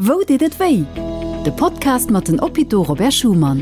Wou deet et wéi? De Podcast mat den Hôpitaux Robert Schuman.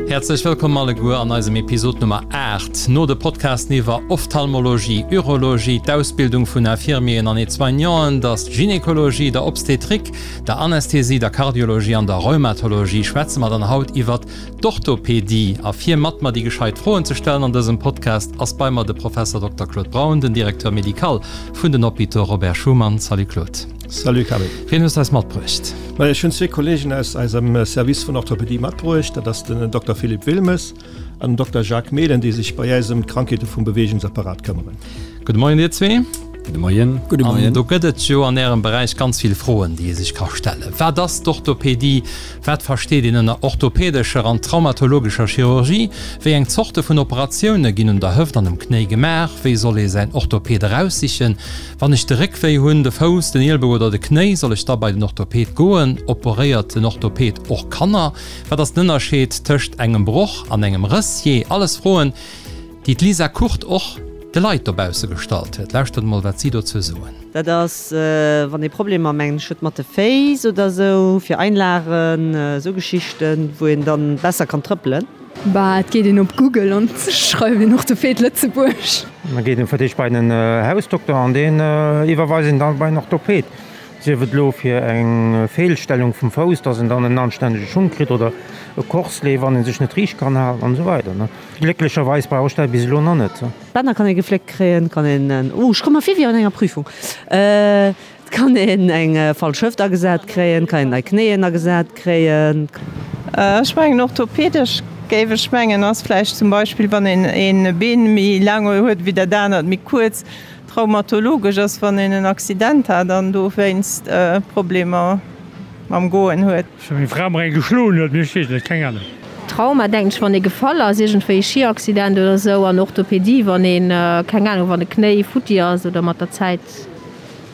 Häerzlech wëllkomm alleguer an eisem Episod Nummer 8. No de Podcasten iwwer Ophtalmologie, Urologie, d'Ausbildung vun Infirmieren an Aide-soignanten, der Gynekologie, der Obstetrik, der Anästhesie, der Kardiologie an der Rheumatologie schwätze mer dann haut iwwert d'Orthopedie. A fir mat mer déi gescheit Froen ze stellen an dësem Podcast ass bei mer de Professor Dokter Claude Braun, den Directeur médical vun den Hôpitaux Robert Schuman. Salut Claude. Salut Camille. Wien hues de eis matbruecht? Majo, ech hunn zwee Kollegen aus eisem Service vun Orthopedie matbruecht. Dat ass den Dokter Philippe Wilmes an den Dokter Jacques Mehlen, déi sech bei eis ëm d'Krankheete vum Beweegungsapparat këmmeren. Gudde Moien dir zwee. Gudde Moien. Gudde Moien. An do gëtt et jo an Ärem Beräich ganz vill Froen, déi ee sech ka stellen. Wat ass d'Orthopedie? Wat versteet een ënner orthopädescher an traumatologescher Chirurgie? Wéi eng Zorte vun Operatioune ginn un der Hëft an um Knéi gemaach? Wéi soll ee säin Orthopäd eraussichen? Wann ech de Réck wéi hunn, de Fouss, den Ielbou oder de Knéi, soll ech da bei den Orthopäd goen? Operéiert den Orthopäd och Kanner? Wat ass den Ënnerscheed tëscht engem Broch an engem Rëss? Jee, alles Froen, déi d'Lisa Kurt och de Leit dobausse gestallt huet. Lauschtert emol, wat si dozou soen. Dat ass, wann ee Problemer, mengen ech, huet mat de Féiss oder sou, fir Einlagen, esou Geschichten, wou een dann besser kann trëppelen. Bah, et geet een op Google an schreift een Orthoped Lëtzebuerg. Da geet een fir d'éischt bei den Hausdokter an deen iwwerweist een dann bei en Orthoped. Sief et elo fir eng Feelstellung vum Fouss, dass en dann en anstännege Schung kritt oder e Corselet, wann en sech net riicht kann halen an esou weider. Glécklecherweis brauch ech dat bis elo nach net. D'Bänner kann ee gefléckt kréien, kann een en, oh ech komme mer vir wéi an enger Prüfung. Et kann een eng falsch Hëft agesat kréien, kann een nei Knéien agesat kréien. Ech mengen orthopedesch géif ech mengen ass vläicht zum Beispill wann een een Been méi laang huet wéi dat anert méi kuerz. Traumatologesch ass wann een en Accident hat an dowéinst Problemer mam Goen huet. Well meng Fra mer eng geschloen huet, mee ech weess net, keng Ahnung. Trauma denken ech wann ee gefall ass, iergendwéi e Schiaccident oder sou an Orthopedie wann een, keng Ahnung, wann e Knéi futti ass oder mat der Zäit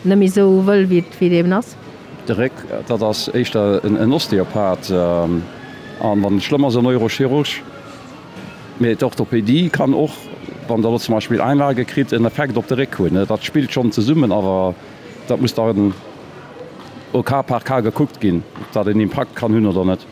net méi sou wëll wéi et wéi et eben ass. De Réck, dat ass éischter en Osteopath an wann et schlëmm ass en Neurochirurg. Mee d'Orthopédie kann och, wann Der elo zum Beispill Einlage kritt, en Effekt op de Réck hunn. Dat spillt schonn zesummen, awer dat muss dann au cas par cas gekuckt ginn, ob dat en Impakt kann hunn oder net.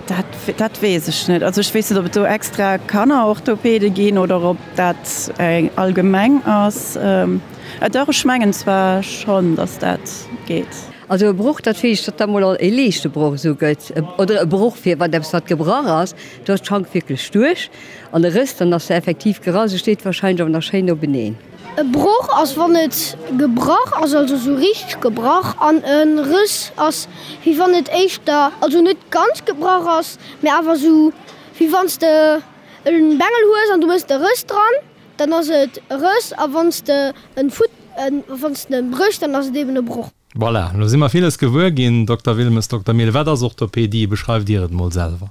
Dat, dat weess ech net. Also ech weess net, ob et do extra Kannerorthopäde ginn oder ob dat allgemeng ass. Dach, ech mengen zwar schonn, datt dat geet. Also e Broch, dat heescht, datt da mol e liichte Broch esou gëtt, oder e Broch fir wann eppes wat gebrach ass, do ass d'Schank wierklech duerch. An e Rëss, dann ass se effektiv gerass, e steet wahrscheinlech awer nach schéin openeen. E Broch ass wann et gebrach ass, also sou richteg gebrach, an e Rëss ass wéi wann et éischter, also net ganz gebrach ass, mee awer sou wéi wann s de en Bengel hues an du méchs e Rëss dran. Dann ass et e Rëss a wann s de en Fut, wann s de en bréchs, dann ass et eben e Broch. Voilà, elo si mer villes gewuer ginn, Dokter Wilmes, Dokter Mille. Wat ass Orthopedie? Beschreift Dir et mol selwer.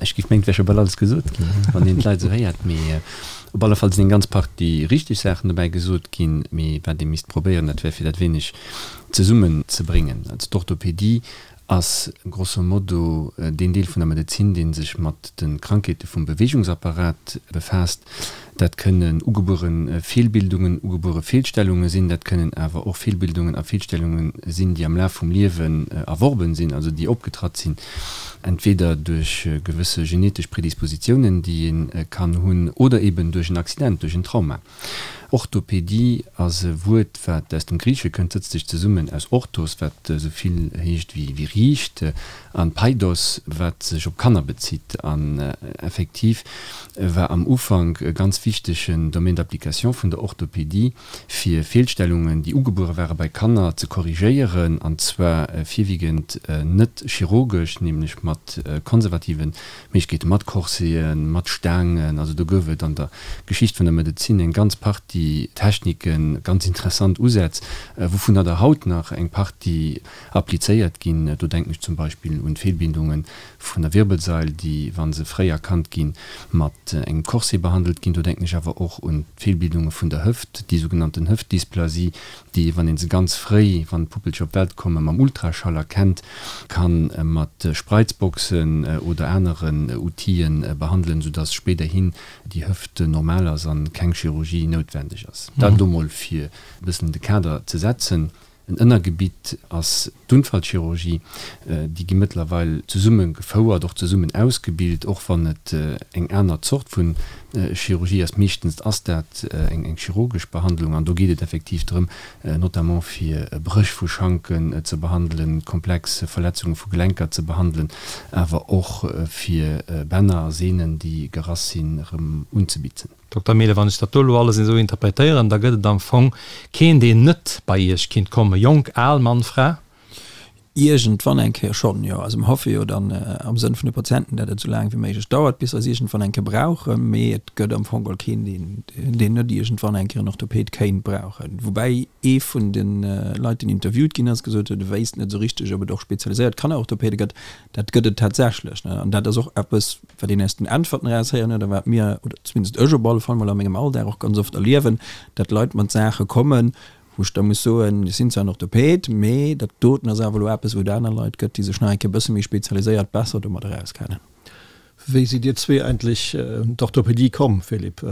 Ech géif mengen, et wär scho bal alles gesot ginn, wann een d'Leit esou héiert. Mee op alle Fall sinn eng ganz Partie richteg Saachen dobäi gesot ginn. Mee wat ee misst probéieren, dat wär fir dat wéineg zesummenzebréngen. Also d'Orthopedie ass grosso modo deen Deel vun der Medezin, dee sech mat de Krankheete vum Beweegungsapparat befaasst. Dat kënnen ugebuere Feelbildungen, ugebuere Feelstellunge sinn, dat kënnen awer och Feelbildungen a Feelstellunge sinn, déi am Laf vum Liewen erworben sinn, also déi opgetratt sinn, entweder duerch gewësse genetesch Predispositiounen, déi ee kann hunn, oder eben duerch en Accident, duerch en Trauma. Orthopedie ass e Wuert, wat aus dem Griichesche kënnt, sëtzt sech zesummen aus orthos, wat esou vill heescht wéi riicht, an paidos, wat sech op Kanner bezitt. An effektiv war am Ufank e ganz wichtegen Domaine d'application vun der Orthopedie, fir Feelstellungen, déi ugebuere ware bei Kanner, ze korrigéieren, an zwar virwiegend net chirurgesch, nämlech mat konservativen Méiglechkeete mat Corseten, mat Staangen, also do gouf et an der Geschicht vun der Medezin eng ganz Partie Techniken, ganz interessant Usätz, wouvunner der haut nach eng Partie applizéiert ginn. Do denken ech zum Beispill un d'Feelbindunge vun der Wirbelsail, déi, wa se fréi erkannt ginn, mat engem Corset behandelt ginn. Do denken ech awer och un d'Feelbildunge vun der Hëft, déi sougenannten Hëftdysplasie, déi, wann ee se ganz fréi, wann d'Puppelcher op d'Welt kommen, mam Ultraschall erkennt, ka mat Spreizboxen oder aneren Outile behandelen, soudass spéiderhin déi Hëft normal ass a keng Chirurgie noutwendeg ass. Dat elo mol fir e bëssen de Kader ze setzen. En Ënnergebitt ass d'Unfallchirurgie. Déi gi mëttlerweil zesumme gefouert, och zesummen ausgebilt, och wann et eng aner Zort vu Chirurgie ass. Meeschtens ass dat eng chirurgesch Behandlung an do geet et effektiv drëm, notamment fir Bréch vu Schanken ze behandelen, komplex Verletzunge vu Gelenker ze behandelen, awer och fir Bänner a Sehnen, déi gerass sinn, erëm unzebitzen. Dokter Mehlen, wann ech dat do elo alles esou interpretéieren, da gëtt et am Fong keen, deen net bei Iech kinnt kommen, jonk, al, Mann, Fra? Iergendwann eng Kéier schonn, jo. Also mer hoffe jo dann am Sënn vun de Patienten, dat et esou laang wéi méiglech dauert, bis se eis iergendwann eng Kéier brauchen. Mee et gëtt am Fong geholl keen, deen, deen net iergendwann eng Kéier en Orthoped kéint brauchen. Woubäi ee vun de Leit, deen interviewt ginn ass, gesot huet, e wéisst net esou richteg, ob et och spezialiséiert Kannerorthopede gëtt. Dat gëtt et tatsächlech, ne. An dat ass och eppes, wat een aus den Äntwerten eraushéieren huet a wat mir, oder zumindest ech op alle Fall mol a mengem Alldag och ganz oft erliewen, dat Leit mat Saache kommen, Wou ech da muss soen, ech sinn zwar en Orthoped, mee dat doten ass awer elo eppes, wou et aner Leit gëtt, déi sech nach eng Kéier e bësse méi spezialiséiert besser domadder auskennen. Wéi sidd Dir zwee eigentlech un d'Orthopedie komm, Philippe?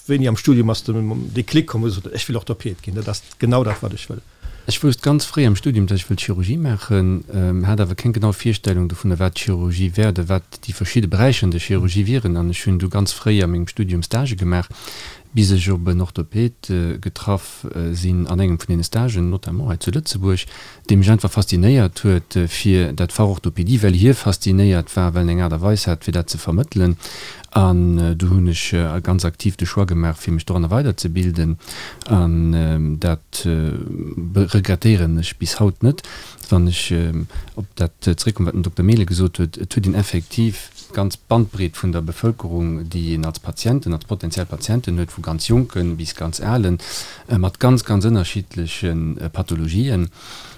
Wéini am Studium ass den Déclic komm, wou du gesot hues, ech wëll Orthoped ginn, dat ass genau dat, wat ech wëll? Ech wousst ganz fréi am Studium, dass ech wëllt Chirurgie maachen, hat awer keng genau Virstellung dovunner, wat Chirurgie wär oder wat déi verschidde Beräicher an der Chirurgie wieren. An ech hunn du ganz fréi a mengem Studium Stagë gemaach, bis ech op en Orthoped getraff sinn an engem vun deene Stagen, notamment hei zu Lëtzebuerg, dee mech einfach faszinéiert huet fir dat Fach Orthopédie, well hie faszinéiert war, well en eng Aart a Weis hat, fir dat ze vermëttelen. An du hunn ech ganz aktiv de Choix gemaach, fir mech doranner weiderzebilden. An dat regrettéieren ech bis haut net. Wann ech op dat zeréckkommen, wat den Dokter Mehlen gesot huet, et huet een effektiv d'ganz Bandbreet vun der Bevëlkerung, déi een als Patienten, als potentiell Patienten huet, vu ganz Jonke bis ganz Alen, mat ganz, ganz ënnerschiddleche Pathologien.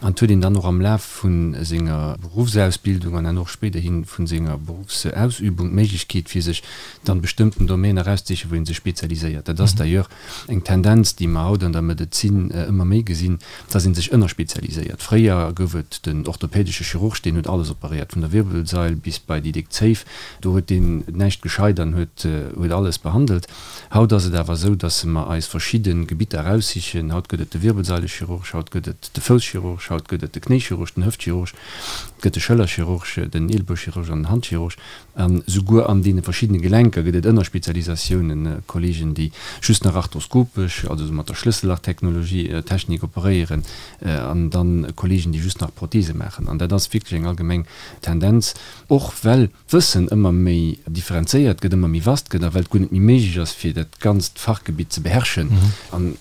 An et huet een dann och am Laf vu senger Beruffsausbildung an dann och spéiderhi vu senger Beruffsausübung d'Méiglechkeet, fir sech dann bestëmmten Domäner erauszesichen, wou ee sech spezialiséiert. Dat ass d'ailleurs eng Tendenz, déi mer haut an der Medezin ëmmer méi gesinn, dass ee sech ënnerspezialiséiert. Fréier gouf et den orthopädesche Chirurg, deen huet alles operéiert, vun der Wirbelsail bis bei déi déck Zéif. Do huet deen näischt gescheit an huet huet alles behandelt. Haut ass et awer esou, dass mer eis verschidde Gebitter eraussichen. Haut gëtt et de Wirbelsaileschirurg, haut gëtt et de Fousschirurg, haut gëtt et de Knéichirurg, den Hëftchirurg, et gëtt de Schëllerchirurg, den Eelbouchirurg an den Handchirurg. An souguer an deene verschiddene Gelenker gëtt et Ënnerspezialisatiounen, Kollegen, déi just nach arthroskopesch, also esou mat der Schlëssellach-Technologie, Technik operéieren, an dann Kollegen, déi just nach Prothese maachen. An dat ass wierklech eng allgemeng Tendenz, och well d'Wëssen ëmmer méi differenzéiert gëtt, ëmmer méi vast gëtt a well et guer net méi méiglech ass, fir dat ganzt Fachgebitt ze beherrschen. An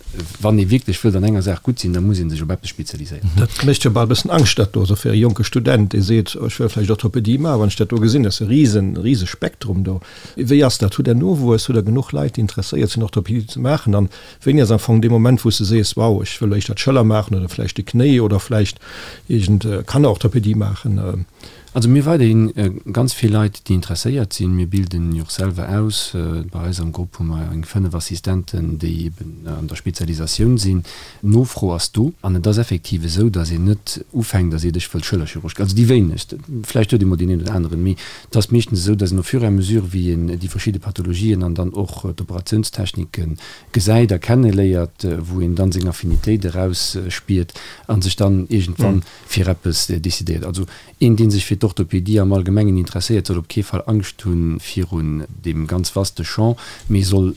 wann ee wierklech wëllt an enger Saach gutt sinn, da muss ee sech op eppes spezialiséieren. Dat mécht jo bal e bëssen Angscht, dat do, also fir e jonke Student, dee seet, ech wëll vläicht Orthopedie maachen, wann ech dat do gesinn, dat ass e risen, rise Spektrum do. Wéi ass dat? Hutt Der Nowuess? Hutt Der genuch Leit, déi interesséiert sinn, Orthopedie ze maachen? An wéini ass am Fong dee Moment, wou s de sees, wow, ech wëll éischter d'Schëller maachen oder vläicht de Knéi oder vläicht iergend Kannerorthopedie maachen? Also mir weiderhin ganz vill Leit, déi interesséiert sinn. Mir bilden jo och selwer aus. Bei eis am Grupp hu mer eng 5 Assistenten, déi eben an der Spezialisatioun sinn. D'Nofro ass do an et ass effektiv esou, datt een net ufänkt a seet, ech wëll Schëllerchirurg ginn. Also déi wéinegst, vläicht huet ee mol deen een oder aneren, mee et ass meeschtens esou, datt een au fur et à mesure, wéi een déi verschidde Pathologien an dann och d'Operatiounstechnike gesäit a kenneléiert, wou een dann seng Affinitéit erausspiert a sech dann iergendwann fir eppes decidéiert. Also een, dee sech fir d'Orthopédie am Allgemengen interesséiert, soll op kee Fall Angscht hu virun deem ganz vaste Champ, mee soll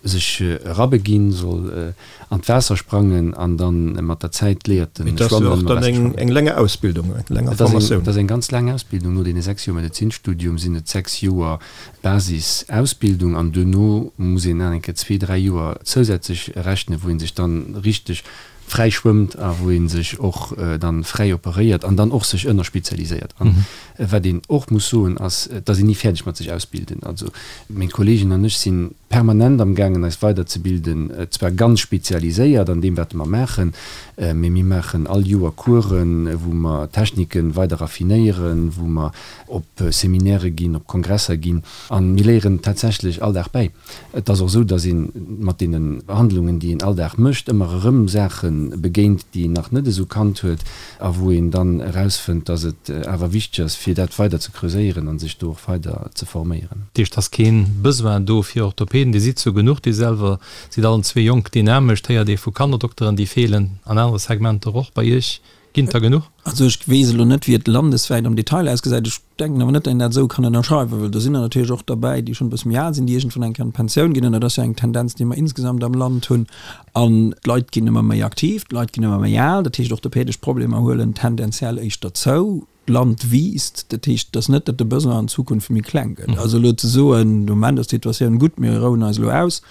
sech erabeginn, soll an d'Waasser sprangen an da mat der Zäit léiert en schwammen. Et ass jo och dann eng länger Ausbildung, eng länger Formatioun. Et ass eng ganz laang Ausbildung. No deene 6 Joer Medezinstudium sinn et 6 Joer Basisausbildung an duerno muss een nach eng Kéier zwee, dräi Joer zousätzlech rechnen, wou ee sech dann richteg fräi schwëmmt a wou ee sech och dann fräi operéiert an dann och sech ënnerspezialiséiert. An wat een och muss soen ass, et ass een ni fäerdeg mat sech ausbilden. Also meng Kolleegen an ech si permanent am gaangen eis weiderzebilden, zwar ganz spezialiséiert an deem wat mer maachen, mee mir maachen all Joer Coursen, wou mer Techniken weider raffinéieren, wou mer op Seminaire ginn, op Kongresser ginn a mir léieren tatsächlech all Dag bäi. Et ass och esou, datt ee mat deene Behandlungen, déi een all Dag mécht, ëmmer erëm Saache. begéint, déi een nach net esou kannt huet a wou een dann erausfënnt, dass et awer wichteg ass, fir dat weider ze creuséieren a sech do och weider ze forméieren. Dat heescht, et ass kee Besoin do fir Orthopäden, Dir sidd zwou genuch, Dir selwer sidd allen zwee jonk, dynamesch, et héiert ee vu Kannerdokteren, déi feelen an anere Segmenter och. Bei Iech ginn et der genuch? Also ech weess elo net, wéi et landeswäit am Detail ausgesäit. Ech denken awer net, datt een dat esou kann ënnerschreiwen, well do sinn der natierlech och derbäi, déi schonn e bësse méi al sinn, déi iergendwann eng Kéier an d'Pensioun ginn. An dat ass jo eng Tendenz, déi mer insgesamt am Land hunn. An d'Leit ginn ëmmer méi aktiv, d'Leit ginn ëmmer méi al. Dat heescht, orthopädesch Problemer huelen tendenziell éischter zou. D'Land wiisst. Dat heescht, et ass net, datt de Besoin an Zukunft méi kleng gëtt. Also elo ze soen, de Moment ass d'Situatioun gutt, mir rouen eis elo aus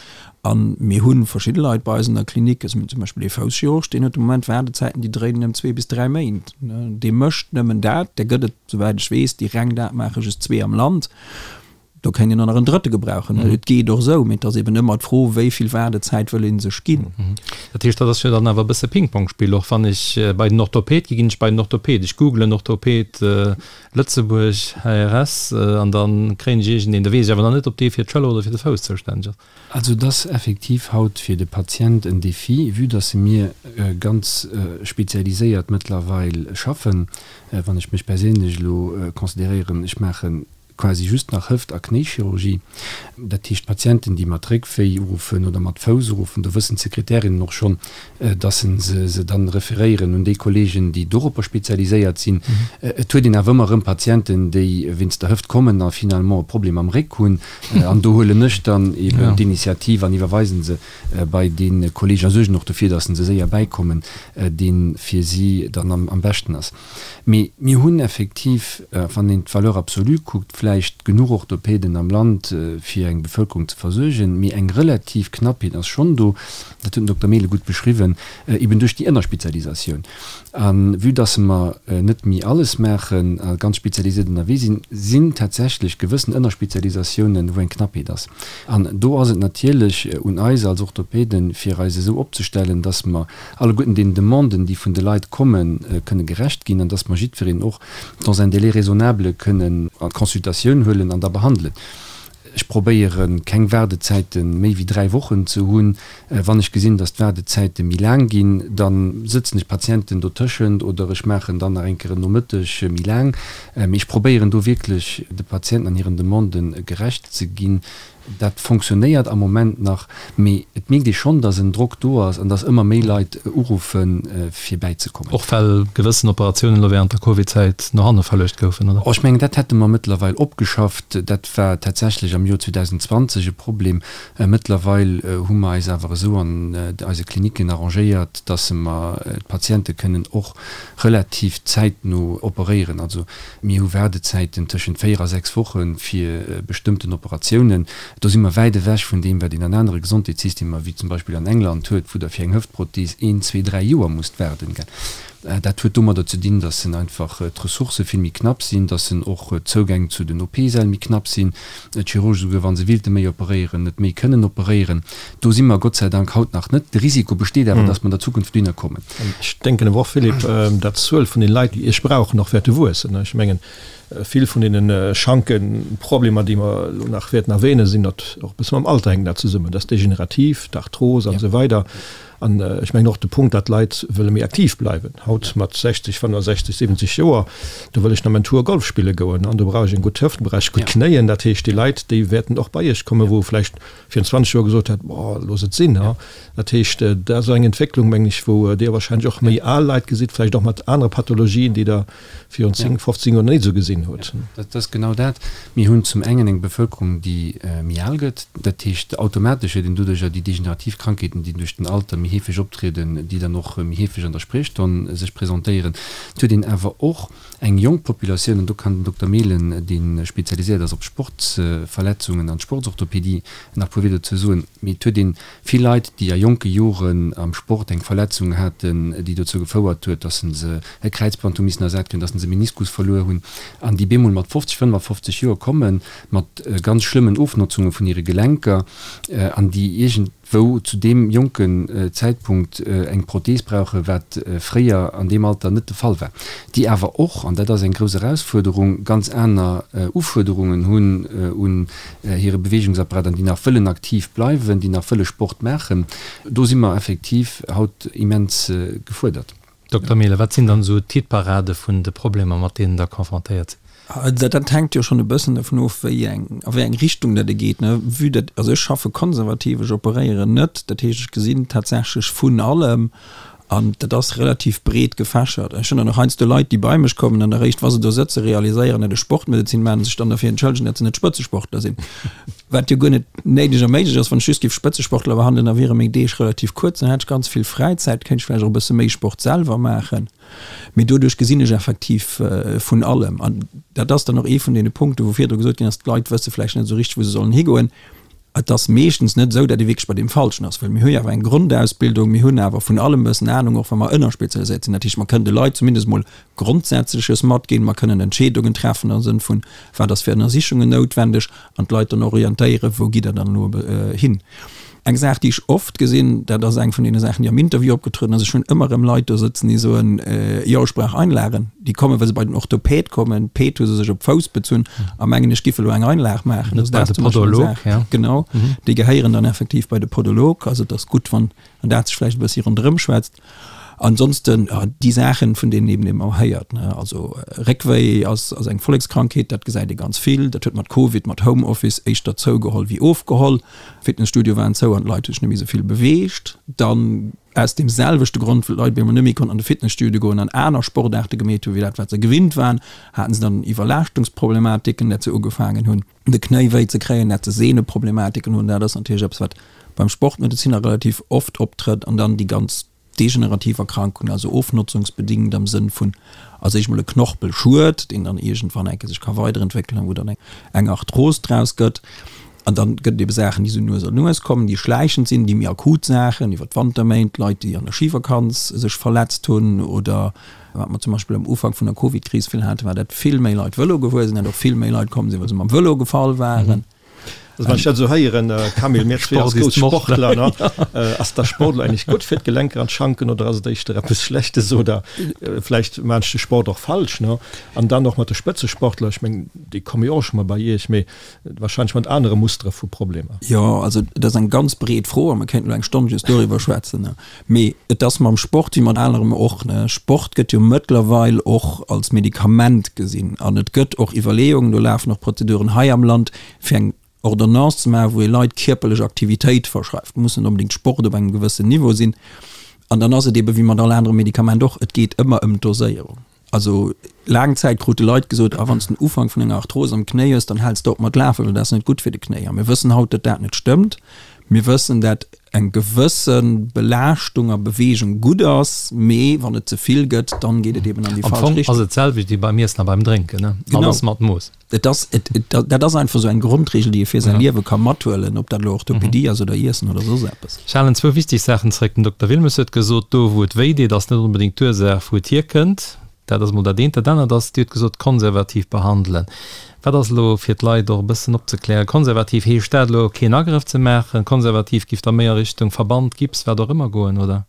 a mir hu verschidde Leit bei eis an der Klinik, also mir hunn zum Beispill ee Fousschirurg, deen huet de Moment Waardezäiten, déi dréinen ëm zwee bis dräi Méint. Dee mécht nëmmen dat, där gëtt et, souwäit ech weess, déi reng dat maachen, just zwee am Land. Do kéint een och nach en drëtte gebrauchen. Et geet och esou, mee et ass eben ëmmer d'Fro, wéi vill Waardezäit wëll ee sech ginn. Dat heescht, dat ass jo dann awer e bësse Ping-Pong-Spill och. Wann ech bei den Orthoped gi, ginn ech bei den Orthoped. Ech googlen Orthoped Lëtzebuerg, HRS, an da kréien ech iergendeen. Da weess ech awer nach net, ob dee fir d'Schëller oder fir de Fouss zoustänneg ass. Also et ass effektiv haut fir de Patient en Défi, vue dass mir ganz spezialiséiert mëttlerweil schaffen. Wann ech mech perséinlech elo consideréieren, ech maache quasi just nach Hëft a Knéichirurgie. Dat heescht, Patienten, déi mat Réckwéi uruffen oder mat Fouss uruffen, do wëssen d'Sekretärinnen och schonn, dass se se dann referéieren un déi Kollegen, déi doropper spezialiséiert sinn. Et huet een awer ëmmer erëm Patienten, déi wéinst der Hëft kommen a finalement e Problem am Réck hunn. An do huelen ech dann eben d'Initiativ an iwwerweisen se bei dee Kolleg a suergen och dofir, dass se séier bäikommen, dee fir si dann am beschten ass. Mee mir hunn effektiv, wann een d'Valeur absolue kuckt, vläicht genuch Orthopäden am Land, fir eng Bevëlkerung ze versuergen, mee eng relativ Knappheet ass schonn do, dat huet den Dokter Mehlen gutt beschriwwen, eben duerch déi Ënnerspezialisatioun. A vue dass mer net méi alles maachen a ganz spezialisiert ënnerwee sinn, sinn tatsächlech gewëssen Ënnerspezialisatiounen, wou eng Knappheet ass. An do ass et natierlech un eis als Orthopäden, fir eis esou opzestellen, dass mer alleguerten den Demanden, déi vun de Leit kommen, kënne gerecht ginn an dass mer jiddwereen och dans un délai raisonnable kënnen an d'Consultatioun huelen an da behandelen. Ech probéiere keng Waardezäite méi wéi 3 Wochen ze hunn. Wann ech gesinn, dass d'Waardezäite méi laang ginn, da sëtzen ech Patienten dotëschent oder ech maachen dann nach eng Kéier en Nomëtteg méi laang. Mee ech probéieren do wierklech de Patienten an hiren Demandë gerecht ze ginn. Dat fonctionnéiert am Moment nach, mee et mierkt ee schonn, datt en Drock do ass an datt ëmmer méi Leit uruffen, fir bäizekommen. Och well gewëssen Operatiounen elo wärend der Covid-Zäit no hanne verluecht goufen, oder? Oh, ech mengen, dat hätte mer mëttlerweil opgeschafft. Dat war tatsächlech am Joer 2020 e Problem. Mëttlerweil hu mer eis awer esou an eise Klinicken arrangéiert, datt mer d'Patiente kënnen och relativ zäitno operéieren. Also Mir hu Waardezäiten tëschent 4 a 6 Woche fir bestëmmten Operatiounen. Do si mer wäit ewech vun deem, wat een an anere Gesondheetssystemer, wéi zum Beispill an England huet, wou Der fir eng Hëftprothees een, zwee, dräi Joer musst waarden. Dat huet domadder ze dinn, dass en einfach d'Ressourcë vill méi knapp sinn, dass en och d'Zougäng zu den OP-Säll méi knapp sinn, d'Chirurge souguer, wa se willte méi operéieren, net méi kënnen operéieren. Do si mer Gott sei Dank haut nach net. De Risiko besteet awer, dass mer an der Zukunft dohinner kommen. Ech denken awer och, Philippe, datt d'Zuel vun den Leit, déi Iech brauchen, och wäerte wuessen. Ech mengen, vill vun deene Schankeproblemer, déi mer elo nach wäerten erwähnen, sinn dat och e bësse mam Alter hänkt dat zesummen. Dat ass degenerativ, d'Arthros an esou weider. An ech mengen och de Punkt, datt d'Leit wëlle méi aktiv bleiwen. Haut mat 60, 65, 70 Joer, do wëll ech nach mäin Tour Golf spille goen an do brauch ech eng gutt Hëft, do brauch ech gutt Knéien. Dat heescht, déi Leit, déi wäerten och bei Iech kommen, wou vläicht virun 20 Joer gesot hätt, Boah, looss et sinn. Dat heescht, dat ass eng Entwécklung, mengen ech, wou Dir wahrscheinlech och méi al Leit gesitt, vläicht och mat anere Pathologien, déi Der virun 10, 15 Joer net esou gesinn hutt. Dat ass genau dat. Mir hunn zum engen eng Bevëlkerung, déi méi al gëtt. Dat heescht, automatesch huet een doduercher déi degenerativ Krankheeten, déi duerch den Alter méi heefeg optrieden, déi dann och méi heefeg an der Spriechstonn sech presentéieren. Et huet een awer och eng jonk Populatioun, an do kann den Dokter Mehlen, dee spezialiséiert ass op Sportsverletzungen an d'Sportsorthopedie, nach e puer Wieder dozou soen, mee et huet ee vill Leit, déi a jonke Joren am Sport eng Verletzung haten, déi dozou gefouert huet, datt se e Kräizband hu missen ersat kréien, datt se e Meniskus verluer hunn. A. an déi bemol mat 50, 55 Joer kommen, mat ganz schlëmmen Ofnotzunge vun hire Gelenker an déi iergendwou zu deem jonken Zäitpunkt eng Prothees brauchen, wat fréier an deem Alter net de Fall war, déi awer och, an dat ass eng grouss Erausfuerderung, ganz aner Ufuerderungen hunn un hire Beweegungsapparat an déi nach wëllen aktiv bleiwen, déi nach wëlle Sport maachen. Do si mer effektiv haut immens gefuerdert. Dokter Mehlen, wat sinn dann esou d'Hitparade vun de Problemer, mat deenen Der confrontéiert sidd? Dat hänkt jo schonn e bëssen dovun of, wéi eng, a wéi eng Richtung dat e geet, ne. Vue dat, also ech schaffe konservativ, ech operéieren net, dat heescht, ech gesinn tatsächlech vun allem an dat ass relativ breet gefächert. Ech hunn dann och heiansdo Leit, déi bei mech kommen an eréischt, wa se do sëtzen, realiséieren, datt ech Sportmedezin maachen a sech dann derfir entschëllegen, datt se net Spëtzesportler sinn. Wat jo guer net néideg a méiglech ass. Wann ech just géif Spëtzesportler behandelen, da wiere meng Deeg relativ kuerz, dann hätt ech ganz vill Fräizäit, kéint ech vläicht och e bësse méi Sport selwer maachen. Mee doduerch gesinn ech effektiv vun allem. An dat ass dann och ee vun deene Punkten, wou virdru gesot ginn ass, d'Leit wësse vläicht net esou richteg, wou se sollen higoen. Et ass meeschtens net esou, datt ee wierklech bei deem Falschen ass, well mir hu jo awer eng Grondausbildung, mir hunn awer vun allem e bëssen Anung, och wa mer ënnerspezialiséiert sinn. Dat heescht, mer kënnen de Leit zumindest emol Grondsätzleches matginn. Mer kënnen Entscheedungen treffen am Sënn vun, wat ass fir Ënnersichungen noutwendeg, an d'Leit dann orientéieren, wou gitt Der dann elo hin. Eng Saach, déi ech oft gesinn, dat ass eng vun deene Saachen, déi am Interview opgetrueden ass, ech hunn ëmmer erëm Leit do sëtzen, déi soen, jo, ech brauch Einlagen. Déi kommen, well se bei den Orthopäd kommen, d'Päd hu se sech op d'Fouss bezunn a mengen, ech giff elo eng Einlag maachen. Also dat ass zum Beispill eng Saach, genau, déi gehéieren dann effektiv bei de Podolog. Also et ass gutt, wann dat sech vläicht e bëssi ronderëm schwätzt. Ansonsten déi Saachen, vun deenen eben ëmmer héiert, ne, also Réckwéi ass ass eng Vollekskrankheet, dat gesäit ee ganz vill. Dat huet mat Covid, mat Homeoffice éischter zougeholl wéi ofgeholl. Fitnesstudioe waren zou an d'Leit hu sech net méi esou vill beweegt. Dann aus deem selwechte Grond, wëll d'Leit op eemol net méi konnten an de Fitnesstudio goen an aner Sportaarte gemeet hunn, wéi dat wat se gewinnt waren, haten se dann Iwwerlaaschtungsproblematiken, dat se ugefaangen hunn. de Knéi wéi ze kréien, dat se Sehneproblematiken hunn, dat ass natierlech eppes, wat beim Sportmedeziner relativ oft optrëtt, an dann déi ganz degenerativ Erkrankungen, also ofnotzungsbedingt am Sënn vun als éischt mol e Knorpelschued, deen dann iergendwann eng Kéier sech ka weiderentwéckelen a wou dann eng Arthros draus gëtt. An dann gëtt et ebe Saachen, déi esou nues an nues kommen, déi schläichend sinn, déi méi akut Saachen iwwer d'Wanterméint, Leit, déi an der Schivakanz sech verletzt hunn oder Wat mer zum Beispill am Ufank vun der Covid-Kris vill haten, war, datt vill méi Leit Vëlo gefuer sinn, datt och vill méi Leit komm sinn, well se mam Vëlo gefall waren. Also wann ech dat esou héieren, Camille, mir zwee als grouss Sportler, ne, ass da Sport elo eigentlech gutt fir d'Gelenker an d'Schanken oder ass et éischter eppes Schlechtes oder vläicht maan ech de Sport och falsch, ne? An dann och mat de Spëtzesportler, ech meng, déi komme jo och scho mol bei Iech, mee wahrscheinlech mat anere Mustere vu Problemer. Jo, also et ass eng ganz breet Fro a mer kéinten elo eng Stonn just doriwwer schwätzen. Mee et ass mam Sport wéi mat anerem och, ne. Sport gëtt jo mëttlerweil och als Medikament gesinn an et gëtt och Iwwerleeungen, do lafen och Prozeduren hei am Land, fir eng Ordonnance ze maachen, wou ee Leit kierperlech Aktivitéit verschreift. Muss net onbedéngt Sport op engem gewëssen Niveau sinn. An dann ass et ebe wéi mat all anerem Medikament och, et geet ëmmer ëm d'Doséierung. Also laang Zäit krute Leit gesot, ah wann s de den Ufank vun enger Arthros am Knéi hues, dann häls de op mat lafen, well dat ass net gutt fir de Knéi. A mir wëssen haut, datt dat net stëmmt. Mir wëssen, dat eng gewësse Belaaschtung a Beweegung gutt ass, mee wann et ze vill gëtt, dann geet et eben an déi falsch Richtung. Am Fong ass et d'selwecht wéi beim Iessen a beim Drénken, ne? Alles mat Mooss. Et ass, et, et, dat ass einfach esou eng Grondregel, déi ee fir säi Liewe ka mathuelen, ob dat elo Orthopedie ass oder Iessen oder soss eppes. Ech halen zwou wichteg Saachen zréck. Den Dokter Wilmes huet gesot, do wou et wéi deet, ass net onbedéngt d'Ursaach, wou et hierkënnt. Dat ass emol dat eent. Dat anert ass, Dir hutt gesot, konservativ behandelen. Wat ass elo, fir d'Leit och e bëssen opzeklären, konservativ? Heescht dat elo, keen Agrëff ze maachen? Konservativ giff da méi a Richtung Verband, Gips, wat och ëmmer goen, oder?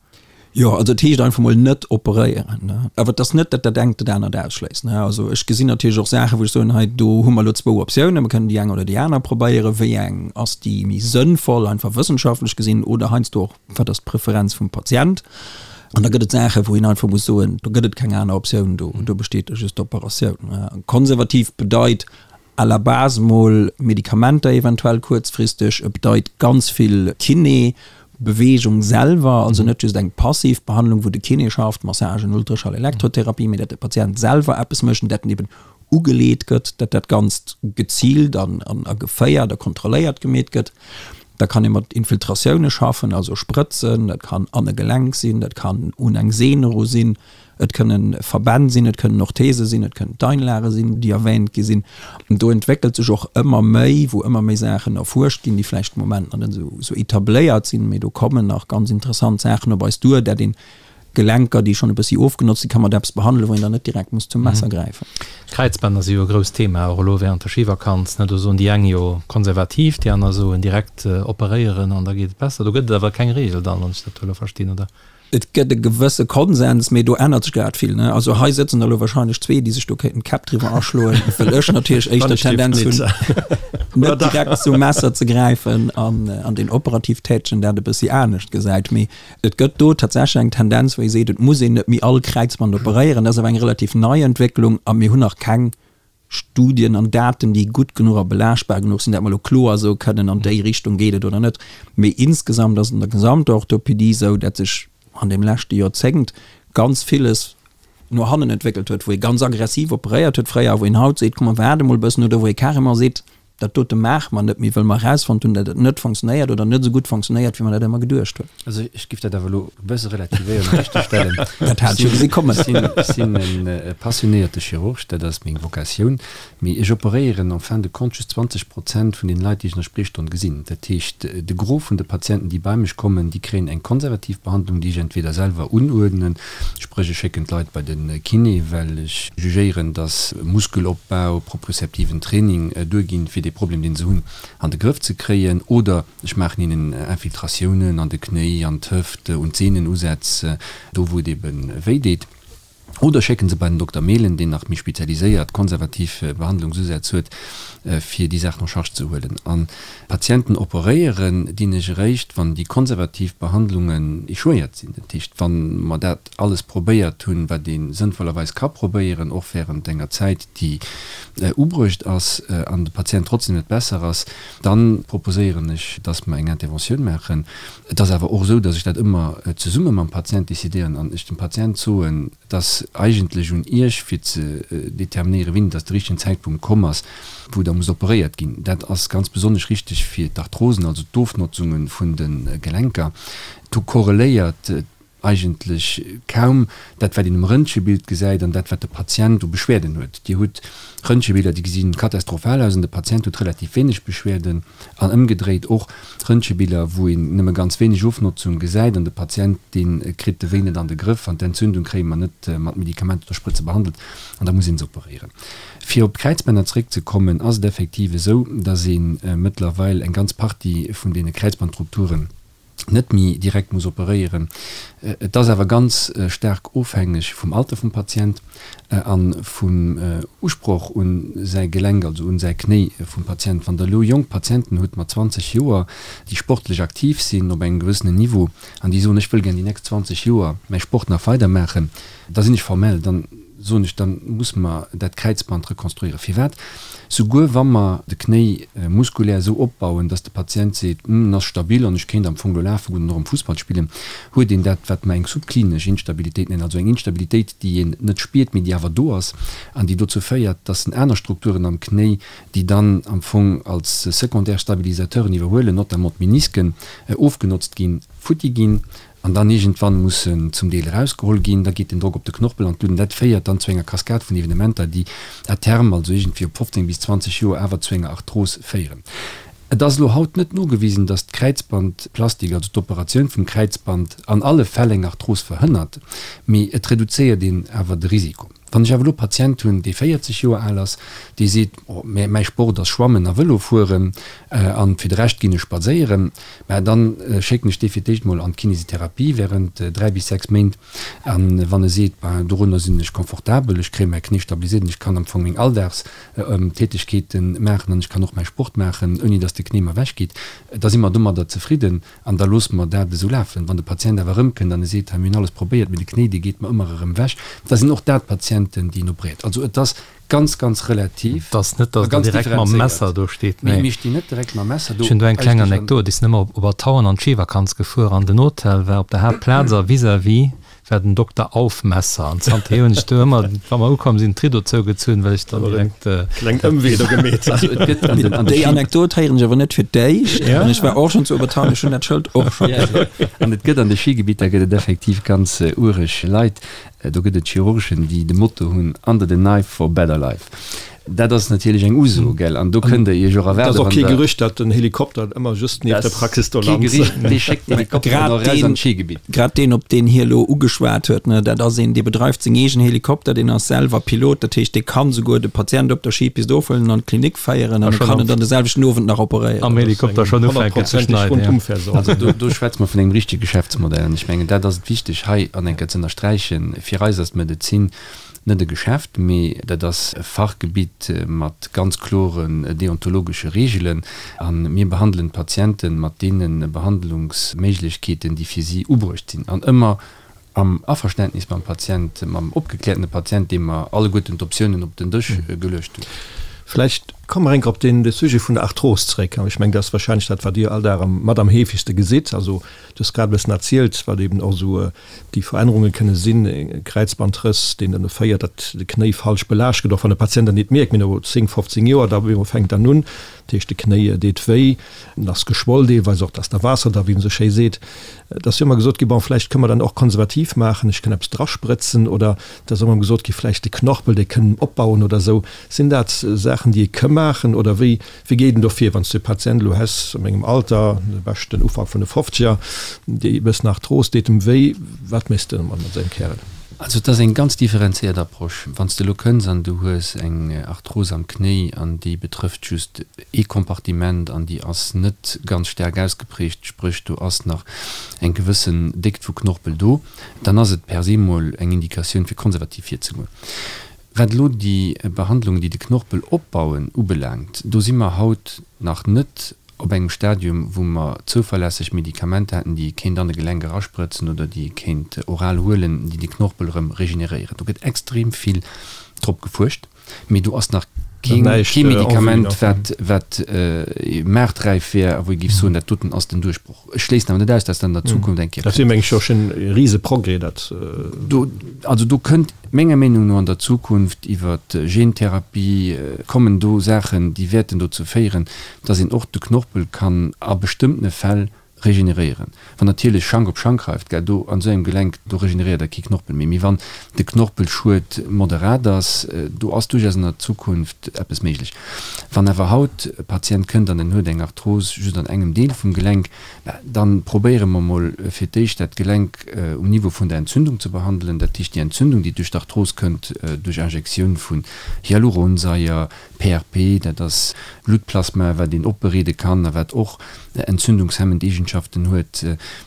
Jo, also et heescht einfach mol net operéieren, ne. Awer et ass net, datt dat engt dat anert ausschléisst, ne. Also ech gesinn natierlech och Saachen, wou ech soen, hei do hu mer elo zwou Optiounen, mer kënnen déi eng oder déi aner probéieren, wéi eng ass déi méi sënnvoll, einfach wëssenschaftlech gesinn, oder heiansdo och, wat ass d'Preferenz vum Patient. An da gëtt et Saachen, wou een einfach muss soen, do gëtt et keng aner Optioun, do do besteet da just d'Operatioun. Konservativ bedeit à la base mol Medikamenter eventuell kuerzfristeg, et bedeit ganz vill Kiné, Beweegung selwer, also net just eng passiv Behandlung, wou de Kiné schafft, Massagen, Ultraschall, Elektrotherapie, mee dat de Patient selwer eppes mécht an dat en eben ugeleet gëtt, dat dat Ganzt geziilt an a geféiert a kontrolléiert gemeet gëtt. Da kann ee mat Infiltratioune schaffen, also Sprëtzen, dat kann an e Gelenk sinn, dat kann un eng Sehn eru sinn, Et kënnen Verbänn sinn, et kënnen Orthese sinn, et kënnen d'Einlage sinn, déi erwähnt gi sinn. An do entwéckelt sech och ëmmer méi, wou ëmmer méi Saachen erfuerscht ginn, déi vläicht de Moment nach net esou etabléiert sinn, mee do kommen nach ganz interessant Saachen op eis duer, dat een. Gelenker, déi schonn e bëssi ofgenotzt sinn, ka mat eppes behandelen, wou een dann net direkt muss zum Messer gräifen. Kräizbänner si jo e grousst Thema, och elo während der Schivakanz. Ne, do soen déi eng jo konservativ, déi aner soen direkt operéieren an da geet et besser. Do gëtt et awer keng Reegel dann, wann ech dat elo verstinn, oder? Et gëtt e gewësse Konsens, mee do ännert sech grad vill. Ne? Also hei sëtzen der elo wahrscheinlech zwee, déi sech do kéinten d'Käpp driwwer aschloen, well ech natierlech éischter d'Tendenz hunn, net direkt zum Messer ze gräifen an, an deen operativ Tätegen dat e bëssi anescht gesäit. Mee Et gëtt do tatsächlech eng Tendenz, wou ee seet, et muss een net méi all Kräizband operéieren. Dat ass awer eng relativ nei Entwécklung a mir hunn nach keng Studien an Daten, déi gutt genuch a belaaschtbar genuch sinn, dat mer elo kloer soe kënnen, an déi Richtung geet et oder net. Mee insgesamt ass et an der gesamter Orthopedie esou, dat sech an deem leschte Joerzéngt ganz villes no hannen entwéckelt huet, wou ee ganz aggressiv operéiert huet fréier a wou een haut seet, komm mer waarde mol e bëssen, oder wou ee carrément seet, Dat dote maache mer net méi, wëll mer erausfonnt hunn, datt et net fonctionnéiert oder net esou gutt fonctionnéiert, wéi mer dat ëmmer geduecht hunn. Also ech giff dat awer elo e bësse relativéieren an richteg stellen. Dat hat ech jo gesi kommen. Ech sinn e passionéierte Chirurg, dat ass meng Vocatioun, mee ech operéieren en fin de compte just 20 Prozent vun den Leit, déi ech an der Spriechstonn gesinn. Dat heescht, de Gros vun de Patienten, déi bei mech kommen, déi kréien eng konservativ Behandlung, déi ech entweder selwer unuerdnen, Spréch ech schécken d'Leit bei de Kiné, well ech jugéieren, dass Muskelopbau, propriozeptiven Training duerginn, fir dee Problem, deen se hunn, an de Grëff ze kréien. Oder ech maachen hinnen Infiltratiounen an de Knéi, an d'Hëft, un d'Sehnenusätz, do wou et ebe wéi deet. Oder schécken se bei den Dokter Mehlen, deen nach méi spezialiséiert konservativ Behandlungsusätz huet, fir déi Saachen en charge ze huelen. An Patienten operéieren dinn ech eréischt, wann déi konservativ Behandlungen échouéiert sinn. Dat heescht, wa mer dat alles probéiert hunn, wat ee sënnvollerweis ka probéieren, och während enger Zäit, déi ubruecht ass, an de Patient trotzdem net besser ass, da proposéieren ech, dass mer eng Interventioun maachen. Et ass awer och esou, dass ech dat ëmmer zesumme mam Patient décidéieren an ech dem Patient soen, Et ass eigentlech un Iech, fir ze determinéieren, wéini dass de richtegen Zäitpunkt komm ass, wou da muss operéiert ginn. Dat ass ganz besonnesch richteg fir d'Arthrosen, also d'Ofnotzunge vun de Gelenker. Do korreléiert eigentlech kaum dat, wat een um Röntgebild gesäit, an dat, wat de Patient u Beschwerden huet. Dir hutt Röntgebilder, déi gesi katastrophal aus, an de Patient huet relativ wéineg Beschwerden. An ëmgedréit och Röntgebiller, wou een nëmme ganz wéineg Ofnotzung gesäit an de Patient, dee kritt de Wéi net an de Grëff an d'Entzündung kréie mer net mat Medikamenter oder Sprëtze behandelt an da muss een se operéieren. Fir op d'Kräizbänner zeréckzekommen, ass et effektiv esou, dass ee mëttlerweil eng ganz Partie vun deene Kräizbandrupturen, net méi direkt muss operéieren. Et ass awer ganz staark ofhängeg vum Alter vum Patient a vum Usproch un säi Gelenk, also un säi Knéi vum Patient. Wann Der elo jonk Patienten hutt mat 20 Joer, déi sportlech aktiv sinn op engem gewëssenen Niveau an déi soen, ech wëll gär déi nächst 20 Joer mäi Sport nach weidermaachen, da sinn ech formell, dann soen ech, da muss mer dat Kräizband rekonstruieren. Firwat? Souguer wa mer de Knéi muskulär esou opbauen, dass de Patient seet, Hm, en ass stabil an ech kéint am Fong elo lafe goen an och erëm Fussball spillen, huet een dat, wat mer eng subklinesch Instabilitéit nennen, also eng Instabilitéit, déi een net spiert, mee déi awer do ass an déi dozou féiert, dass en aner Strukturen am Knéi, déi dann am Fong als secondaire Stabilisateuren iwwerhuelen, notamment d'Menisken, ofgenotzt ginn, futti ginn. An dann iergendwann muss en zum Deel erausgeholl ginn, da geet den Drock op de Knorpel an d'Luut an dat féiert dann zu enger Kaskad vun Evenementer, déi à terme, also iergendwéi op 15 bis 20 Joer, awer zu enger Arthros féieren. Et ass elo haut net nogewisen, datt d'Kräizbandplastik, also d'Operatioun vum Kräizband, an alle Fäll eng Arthros verhënnert, mee et reduzéiert een awer de Risiko. Wann ech awer elo e Patient hunn, dee 40 Joer al ass, dee seet, oh, mä mäi Sport ass Schwammen a Vëlo fueren an fir de Rescht ginn ech spadséieren, mä dann schécken ech dee fir d'éischt mol an d'Kinesitherapie während 3 bis 6 Méint. A wann e seet, ben dorunner sinn ech confortabel, ech kréie mäi Knéi stabiliséiert an ech kann am Fong meng Alldagstätegkeete maachen an ech kann och mäi Sport maachen, ouni datt de Knéi mer ewechgeet, da si mer domadder zefridden. An da loosse mer dat esou lafen. Wann de Patient awer erëmkënnt an e seet, hei mir hunn alles probéiert, mee de Knéi, dee geet mer ëmmer erëm ewech, da sinn och dat Patienten, déi een operéiert. Also et ass ganz, ganz relativ Et ass net, a datt Der ganz direkt mam differenzéiert. Messer do steet, Mee nee. mir stinn net direkt mam Messer do. Ech hunn do eng kleng Eigentlech an. Anekdot. Ech sinn ëmmer op Obertauern an d'Schivakanz gefuer an den Hotel war op der Haaptplaz a vis-à-vis war den Dokter Aufmesser an zanterhier hunn ech do ëmmer, wa mer ukomm sinn, d'Riddo zougezunn, well ech dann direkt. Kleng Ëmwee do gemeet. Also et gëtt an den, an de Déi Schi. Anekdot héieren ech awer net fir d'éischt an ech war och schonn zu Obertauern, ech hunn dat Schëld och scho gesinn. An et gëtt an de Schigebieter gëtt et effektiv ganz uereg Leit. Do gëtt et Chirurgen, déi de Motto hunn, Under the knife for better life. Dat ass natierlech eng Uso, gell? An do kënnt Der Iech och erwaarden, wann Der. Et ass och kee Gerücht, datt den Helikopter ëmmer just nieft der Praxis do lant. Kee Gerücht, dee schéckt den Helikopter dann och eraus an d'Schigebitt. Grad deen, op deen hie elo ugeschwat huet, ne, dat ass een, dee bedreift seng eegen Helikopter, deen ass selwer Pilot, dat heescht, dee kann souguer de Patient op der Skipist ofhuelen an an d'Klinik féieren an e kann en dann de selwechten Owend nach operéieren. Am Helikopter schonn ufänken ze schneiden, jo. Also do schwätze mer vun engem richtege Geschäftsmodell an ech mengen, dat ass et wichteg hei an eng Kéier ze ënnersträichen. Fir eis ass d'Medezin Net e Geschäft, mee dat ass e Fachgebitt mat ganz kloren deontologesche Reegelen. A mir behandelen d'Patiente mat deene Behandlungsméiglechkeeten, déi fir si ubruecht sinn. An ëmmer am Averständnis mam Patient, mam opgekläertene Patient, deem mer alleguerten d'Optiounen op den Dësch geluecht hunn. Vläicht komme mer enk op dee Sujet vun der Arthros zréck. Ech mengen, dat ass wahrscheinlech dat, wat Dir all Dag mat am heefegste gesitt. Also, du hues grad e bëssen erzielt, wat eben och esou Déi Verännerunge kënne sinn, e Kräizbandrëss, deen dann féiert, datt de Knéi falsch belaascht gëtt, och wann de Patient dat nit mierkt, mee no 10, 15 Joer, da op eemol fänkt dann un, dat heescht de Knéi deet wéi, en ass geschwoll deelweis och, et ass da Waasser da, wéi een esou schéi seet. Et ass jo ëmmer gesot ginn, bon, vläicht kënne mer dann och konservativ maachen, ech kënn eppes drasprëtzen oder et ass ëmmer gesot gi vläicht de Knorpel, dee kënn opbauen oder esou. Sinn dat Saachen, déi ee ka maachen oder wéi Wéi geet en do vir, wann s du e Patient elo häss a mengem Alter, de beschten Ufank vun de Fofzeger, déi e bëssen Arthros, deet em wéi, wat méchs de mat esou engem Kärel? Also et ass eng ganz differenzéiert Approche. Wann s de elo kënns an du hues eng Arthros am Knéi an déi betrëfft just ee Kompartiment an déi ass net ganz staark ausgeprägt, spréch do ass nach eng gewëssen Déckt vu Knorpel do, dann ass et per se mol eng Indikatioun fir konservativ virzegoen. Wat elo déi Behandlungen, déi de Knorpel opbauen, ubelaangt, do si mer haut nach net op engem Stadium, wou mer zouverlässeg Medikamenter hätten, déi ee kéint an e Gelenk erasprëtzen oder déi ee kéint oral huelen, déi de Knorpel erëm regeneréieren. Do gëtt extrem vill drop gefuerscht, mee do ass nach kee Medikament, wat wat maarträif wär a wou ee géif soen, dat doten ass den Duerchbroch. Ech schléissen awer net aus, dass dat an der Zukunft eng Kéier kënnt. Dat wier, meng ech, jo schonn e rise Progrès, dat. Do, also do kënnt menger Meenung no an der Zukunft iwwer Gentherapie kommen do Saachen, déi wäerten dozou féieren, dass een och de Knorpel kann a bestëmmtene Fäll regeneréieren. Wann natierlech Schank op Schank reift, gell, do an esou engem Gelenk, do regeneréiert der kee Knorpel méi. Mee wann de Knorpelschued moderat ass, do ass duerchaus an der Zukunft eppes méiglech. Wann awer haut e Patient kënnt an en huet eng Arthros just an engem Deel vum Gelenk, da probéiere mer mol fir d'éischt dat Gelenk um Niveau vun der Entzündung ze behandelen, dat heescht déi Entzündung, déi duerch d'Arthros kënnt, duerch Injektioun vun Hyaluronsäier, PRP, dat ass Bluttplasma, wat een opbereede kann a wat och entzündungshemmend Eegenschaften huet.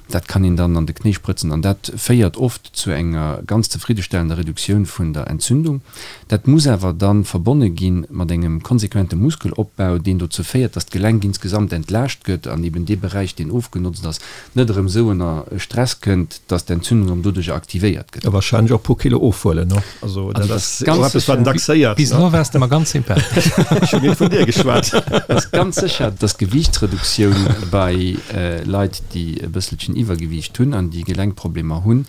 Dat kann een dann an de Knéi sprëtzen an dat féiert oft zu enger ganz zefriddestellender Reduktioun vun der Entzündung. Dat muss awer da verbonne gi mat engem konsequente Muskelopbau, deen dozou féiert, dass d'Gelenk insgesamt entlaascht gëtt an eben dee Beräich, deen ofgenotzt ass, net erëm esou ënner Stress kënnt, dass d'Entzündung erëm doduercher aktivéiert gëtt. A wahrscheinlech och e puer Kilo ofhuelen, ne? Also dat ass och eppes, wat een dacks héiert. Bis elo waars de mer ganz sympathesch. Ech hunn net vun dir geschwat. Et ass ganz sécher, dass d'Gewiichtsreduktioun bei Leit, déi e bësselchen Iwwergewiicht hunn an déi Gelenkproblemer hunn,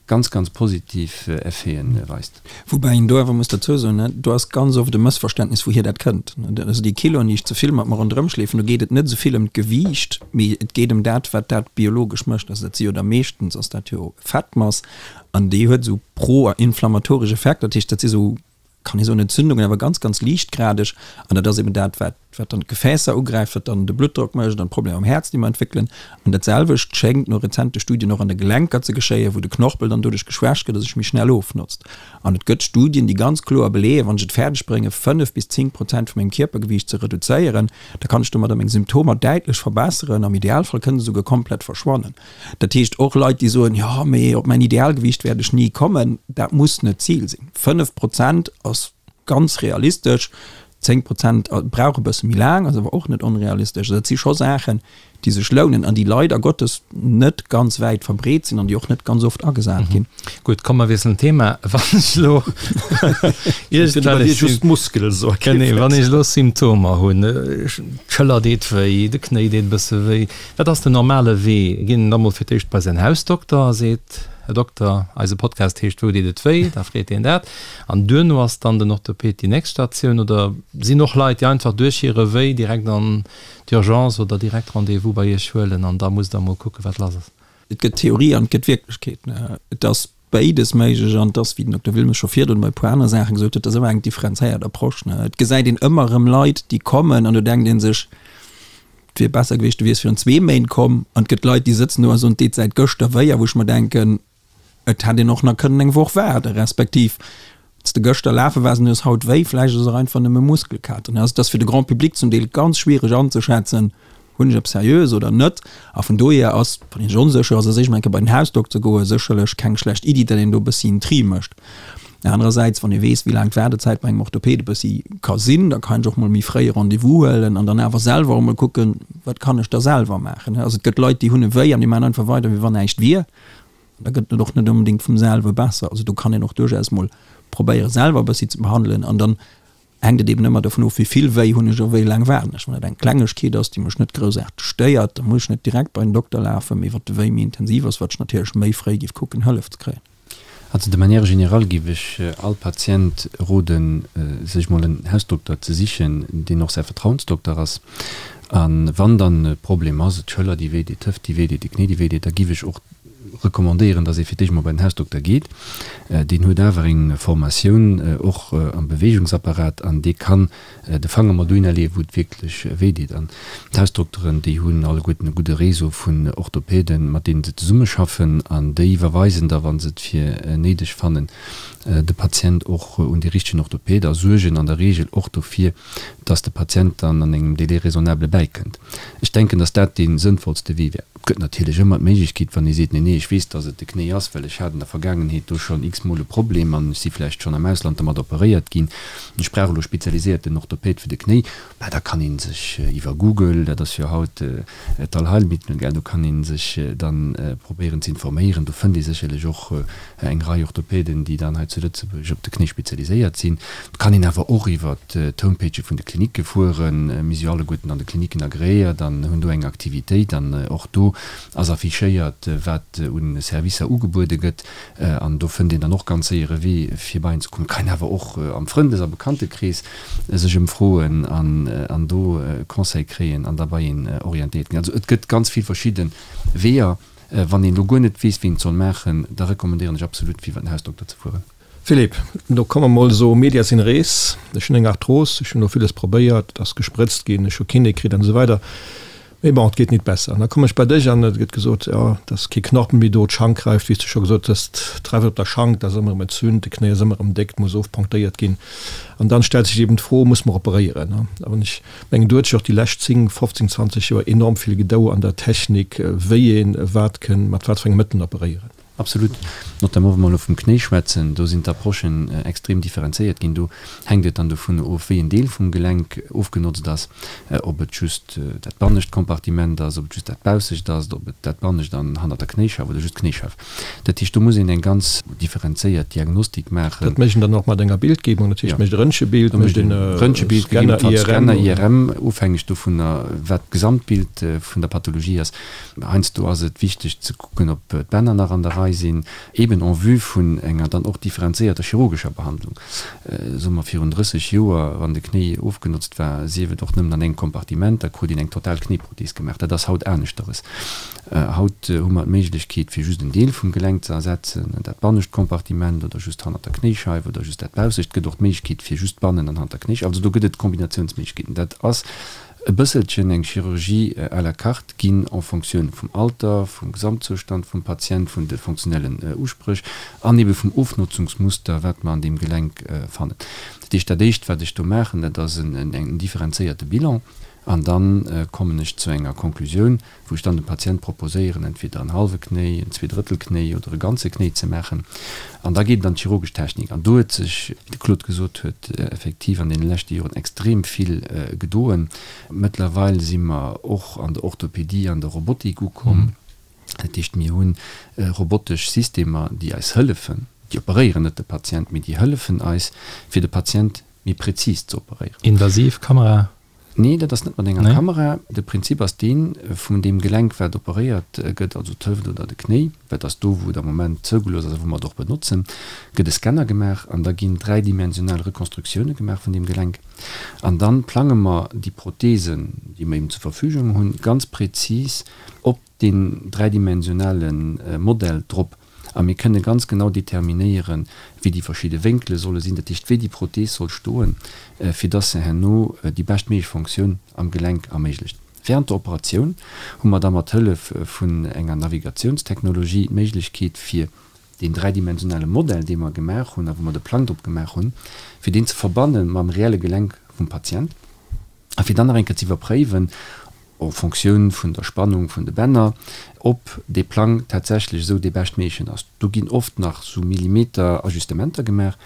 ganz, ganz positiv Effeten weist. Woubäi een do awer muss derzou soen, do ass ganz oft e Mëssverständnis, wouhier dat kënnt. Also déi Kiloen, déi ech ze vill mat mer ronderëm schleefen, do geet et net esou vill ëm d'Gewiicht, mee et geet ëm dat, wat dat biologesch mécht. Also dat si jo da meeschtens ass dat jo Fettmass an déi huet esou pro-inflammatoresch Effekter. Dat heescht, dat si sou, kann ee soen, Entzündungen, awer ganz, ganz liichtgradeg. An dat ass eben dat, wat wat dann d'Gefäässer ugräift, wat dann de Bluttdrock mécht an d'Problemer am Häerz, déi mer entwéckelen. An dat selwecht schéngt no rezente Studien och an de Gelenker ze geschéien, wou de Knorpel dann doduerch geschwächt gëtt a sech méi schnell ofnotzt. An et gëtt Studien, déi ganz kloer beleeën, wann ech et fäerdeg bréngen, 5 bis 10 Prozent vu mengem Kierpergewiicht ze reduzéieren, da kann ech domadder meng Symptomer däitlech verbesseren, am Idealfall kënne se souguer komplett verschwannen. Dat heescht, och Leit, déi soen, jo, mee op mäin Idealgewiicht wäert ech ni kommen, dat muss net d'Zil sinn. 5 Prozent ass ganz realistesch. 10 Prozent brauch e bësse méi laang, ass awer och net onrealistesch. Also dat si scho Saachen, déi sech lounen an déi leider Gottes net ganz wäit verbreet sinn an déi och net ganz oft agesat ginn. Gutt, komm mer wiesselen d'Thema. Wann ech elo iergendwellech Genee, wann ech elo Symptomer hunn, d'Schëller deet wéi, de Knéi deet e bësse wéi, wat ass den normale Wee? Geet een da mol fir d'éischt bei säin Hausdokter a seet, Här Dokter, eise Podcast heescht Wou deet et wéi? Da freet deen dat. An duerno ass dann den Orthoped déi nächst Statioun oder sinn och Leit, déi einfach duerch hire Wéi direkt an d'Urgence oder direkt Rendez-vous bei Iech huelen an da musst Der emol kucken, wat lass ass? Et gëtt Theorie an et gëtt Wierklechkeet. Et ass. Béides méiglech an et ass, wéi den Dokter Wilmes scho virdrun bei e puer anere Saache gesot huet, et ass ëmmer eng differenzéiert Approche. Et gesäit een ëmmer erëm Leit, déi kommen an do denkt ee sech, et wier besser gewiescht, du wiers virun zwee Méint komm. An et gëtt Leit, déi sëtzen do a soen, et deet säit gëschter wéi a wou ech mer denken, et hätt een och nach kënnen eng Woch waarden, respektiv wann s de gëschter lafe waars an du hues haut wéi, vläicht ass et och einfach nëmme Muskelkater. Also et ass fir de Grand public zum Deel ganz schwiereg anzeschätzen, Hunn ech eppes Seriöes oder net? A vun dohier ass, wann een sech onsécher ass, eréischt mol eng Kéier bei den Hausdokter goen, sécherlech keng schlecht Iddi, datt een do e bëssi en Tri mécht. Anerersäits, wann ee weess, wéi laang d'Waardezäit bei engem Orthoped e bëssi ka sinn, da kann een sech och mol méi fréi e Rendez-vous huelen an dann awer selwer och mol kucken, wat kann ech da selwer maachen. Also et gëtt Leit, déi hunn e Wéi an déi maachen einfach weider, wéi wann näischt wier. An da gëtt et och net onbedéngt vum selwe besser. Also do kann een och duerchaus mol probéieren, selwer e bëssi ze behandelen an dann hänkt et eben ëmmer dovun of, wéi vill wéi hunn ech a wéi laang waarden ech. Wann et eng Klengegkeet ass, déi mech net groussaarteg stéiert, da muss ech net direkt bei den Dokter lafen, mee wat de Wéi méi intensiv ass, wat ech natierlech méi fréi géif kucken, Hëllef ze kréien. Also de manière générale géif ech all Patient roden, sech mol en Hausdokter ze sichen, deen och säi Vertrauensdokter ass. A wann dann e Problem ass, d'Schëller déi wéi deet, d'Hëft déi wéi deet, de Knéi déi wéi deet, da géif ech och recommandéieren, dass ee fir d'éischt mol bei den Hausdokter geet. Deen huet awer eng Formatioun och am Beweegungsapparat an dee kann de Fanger mol dohinner leeën, wou et wierklech wéi deet. An d'Hausdokteren, déi hunn alleguerten e gudde Réseau vun Orthopäden, mat deenen se zesummeschaffen an déi iwwerweisen da, wa se et fir néideg fannen, de Patient och un dee richtegen Orthopäd a suergen an der Reegel och dofir, dass de Patient dann an engem Délai raisonnable bäikënnt. Ech denken, dass dat dee sënnvollste Wee wär. Et gëtt natierlech ëmmer d'Méiglechkeet, wann ee seet, Nee, nee, ech weess, dass et de Knéi ass, well ech hat an der Vergaangenheet do schonn x-mol e Problem an ech si vläicht schonn am Ausland domat operéiert ginn, ech brauch elo spezialiséierten Orthopäd fir de Knéi, bah, da kann ee sech iwwer Google, dat ass jo haut d'Allheilmittel, gell, do kann ee sech dann probéieren ze informéieren. Do fënnt ee sécherlech och eng Rei Orthopäden, déi dann hei zu Lëtzebuerg op de Knéi spezialiséiert sinn. Et kann een awer och iwwer d'Homepagë vun de Klinicke fueren. Mir si jo alleguerten an de Klinicken agreéiert an hunn do eng Aktivitéit. An och do ass affichéiert, wat u Servicer ugebuede gëtt. An do fënnt een dann och ganz séier e Wee, fir bei een ze kommen. Et kann een awer och am Frëndes a Bekanntekrees sech ëmfroen an do Conseil kréien an da bei een orientéiert ginn. Also et gëtt ganz vill verschidde Weeër. Wann een elo guer net weess, wéi een et soll maachen, da recommandéieren ech absolut, fir iwwer den Hausdokter ze fueren. Philippe, do komme mer mol esou medias in res. Ech hunn eng Arthros, ech hunn elo villes probéiert, et ass gesprëtzt ginn, ech hu Kiné kritt an esou weider, mee bon, et geet nit besser. An da komme ech bei dech an et gëtt gesot, jo, et ass kee Knorpel méi do, d'Schank räift, wéi s de scho gesot hues, d'Räift op der Schank, dat ass ëmmer erëm entzünt, de Knéi ass ëmmer erëm déck, et muss ofponktéiert ginn. An dann stellt sech eben d'Fro, Muss mer operéieren? A wann ech mengen, do huet sech och déi lescht 10, 15, 20 Joer enorm vill gedou an der Technik, wéi een wat kënn mat wat fir enge Mëttelen operéieren. Absolut. Notamment wa mer elo vum Knéi schwätzen, do sinn d'Approchen extrem differenzéiert ginn. Do hänkt et dann dovun of, wéi en Deel vum Gelenk ofgenotzt ass, ob et just dat bannescht Kompartiment ass, ob et just dat baussecht ass, ob et dat bannescht an hannert der Knéischeif oder just d'Knéischeif. Dat heescht, do muss een eng ganz differenzéiert Diagnostik maachen. Dat mécht een dann och mat enger Bildgebung, dat heescht, mécht e Röntgebild, mécht een e Scanner, IRM. Scanner, IRM, ofhängeg dovunner, wat d'Gesamtbild vun der Pathologie ass. Heiansdo ass et wichteg ze kucken, ob d'Bänner nach an der Rei sinn, eben en vue vun enger dann och differenzéierter chirurgescher Behandlung. Soe mer virun 30 Joer, wann de Knéi ofgenotzt war, sief et och nëmmen an engem Kompartiment, da krut een eng total Knéiprothees gemaach. Dat ass haut aneschteres. Haut hu mer d'Méiglechkeet, fir just en Deel vum Gelenk ze ersetzen, dat bannescht Kompartiment oder just hannert der Knéischeif oder just dat baussecht. Et gëtt och d'Méiglechkeet, fir just bannen an hannert der Knéischeif. Also do gëtt et Kombinatiounsméiglechkeeten. Dat ass e bësselchen eng Chirurgie à la carte ginn en Fonctioun vum Alter, vum Gesamtzoustand vum Patient, vun de fonctionnellen Uspréch an ebe vum Ofnotzungsmuster, wat mer an deem Gelenk fannen. Dat heescht, dat Éischt, wat ech do maachen, dat ass en differenzéierte Bilan an da kommen ech zu enger Konklusioun, wou ech dann dem Patient proposéieren, entweder en hallwe Knéi, en Zweedrëttel-Knéi oder e ganze Knéi ze maachen. An da geet et an d'chirurgesch Technik. An do huet sech, wéi de Claude gesot huet, effektiv an deene leschte Joren extrem vill gedoen. Mëttlerweil si mer och an der Orthopedie an der Robotik ukomm. Dat heescht, mir hu robotesch Systemer, déi eis hëllefen, déi operéieren net de Patient, mee déi hëllefen eis, fir de Patient méi prezis ze operéieren. Invasiv Kamera? Nee, dat ass net mat enger Kamera. De Prinzip ass deen, vun deem Gelenk wat operéiert gëtt, also d'Hëft oder de Knéi, wat ass do wou et am Moment zougelooss ass a wou mer et och benotzen, gëtt e Scanner gemaach an da ginn dräidimensional Rekonstruktioune gemaach vun deem Gelenk. An dann plange mer déi Prothesen, déi mer eben zur Verfügung hunn, ganz prezis op deen dräidimensionale Modell drop. A mir kënne ganz genau determinéieren, wéi déi verschidde Wénkele solle sinn, dat heescht, wéi déi Prothees soll stoen, fir dass se herno déi beschtméiglech Fonctioun am Gelenk erméiglecht. Während der Operatioun hu mer da mat Hëllef vun enger Navigatiounstechnologie d'Méiglechkeet, fir deen dräidimensionale Modell, dee mer gemaach hunn a wou mer de Plang drop gemaach hunn, fir deen ze verbanne mam reelle Gelenk vum Patient a fir dann nach eng Kéier ze iwwerpréiwen, en Fonctioun vun der Spannung vun de Bänner, ob dee Plang tatsächlech esou dee beschtméiglechen ass. Do ginn oft nach esou Millimeter-Ajustementer gemaach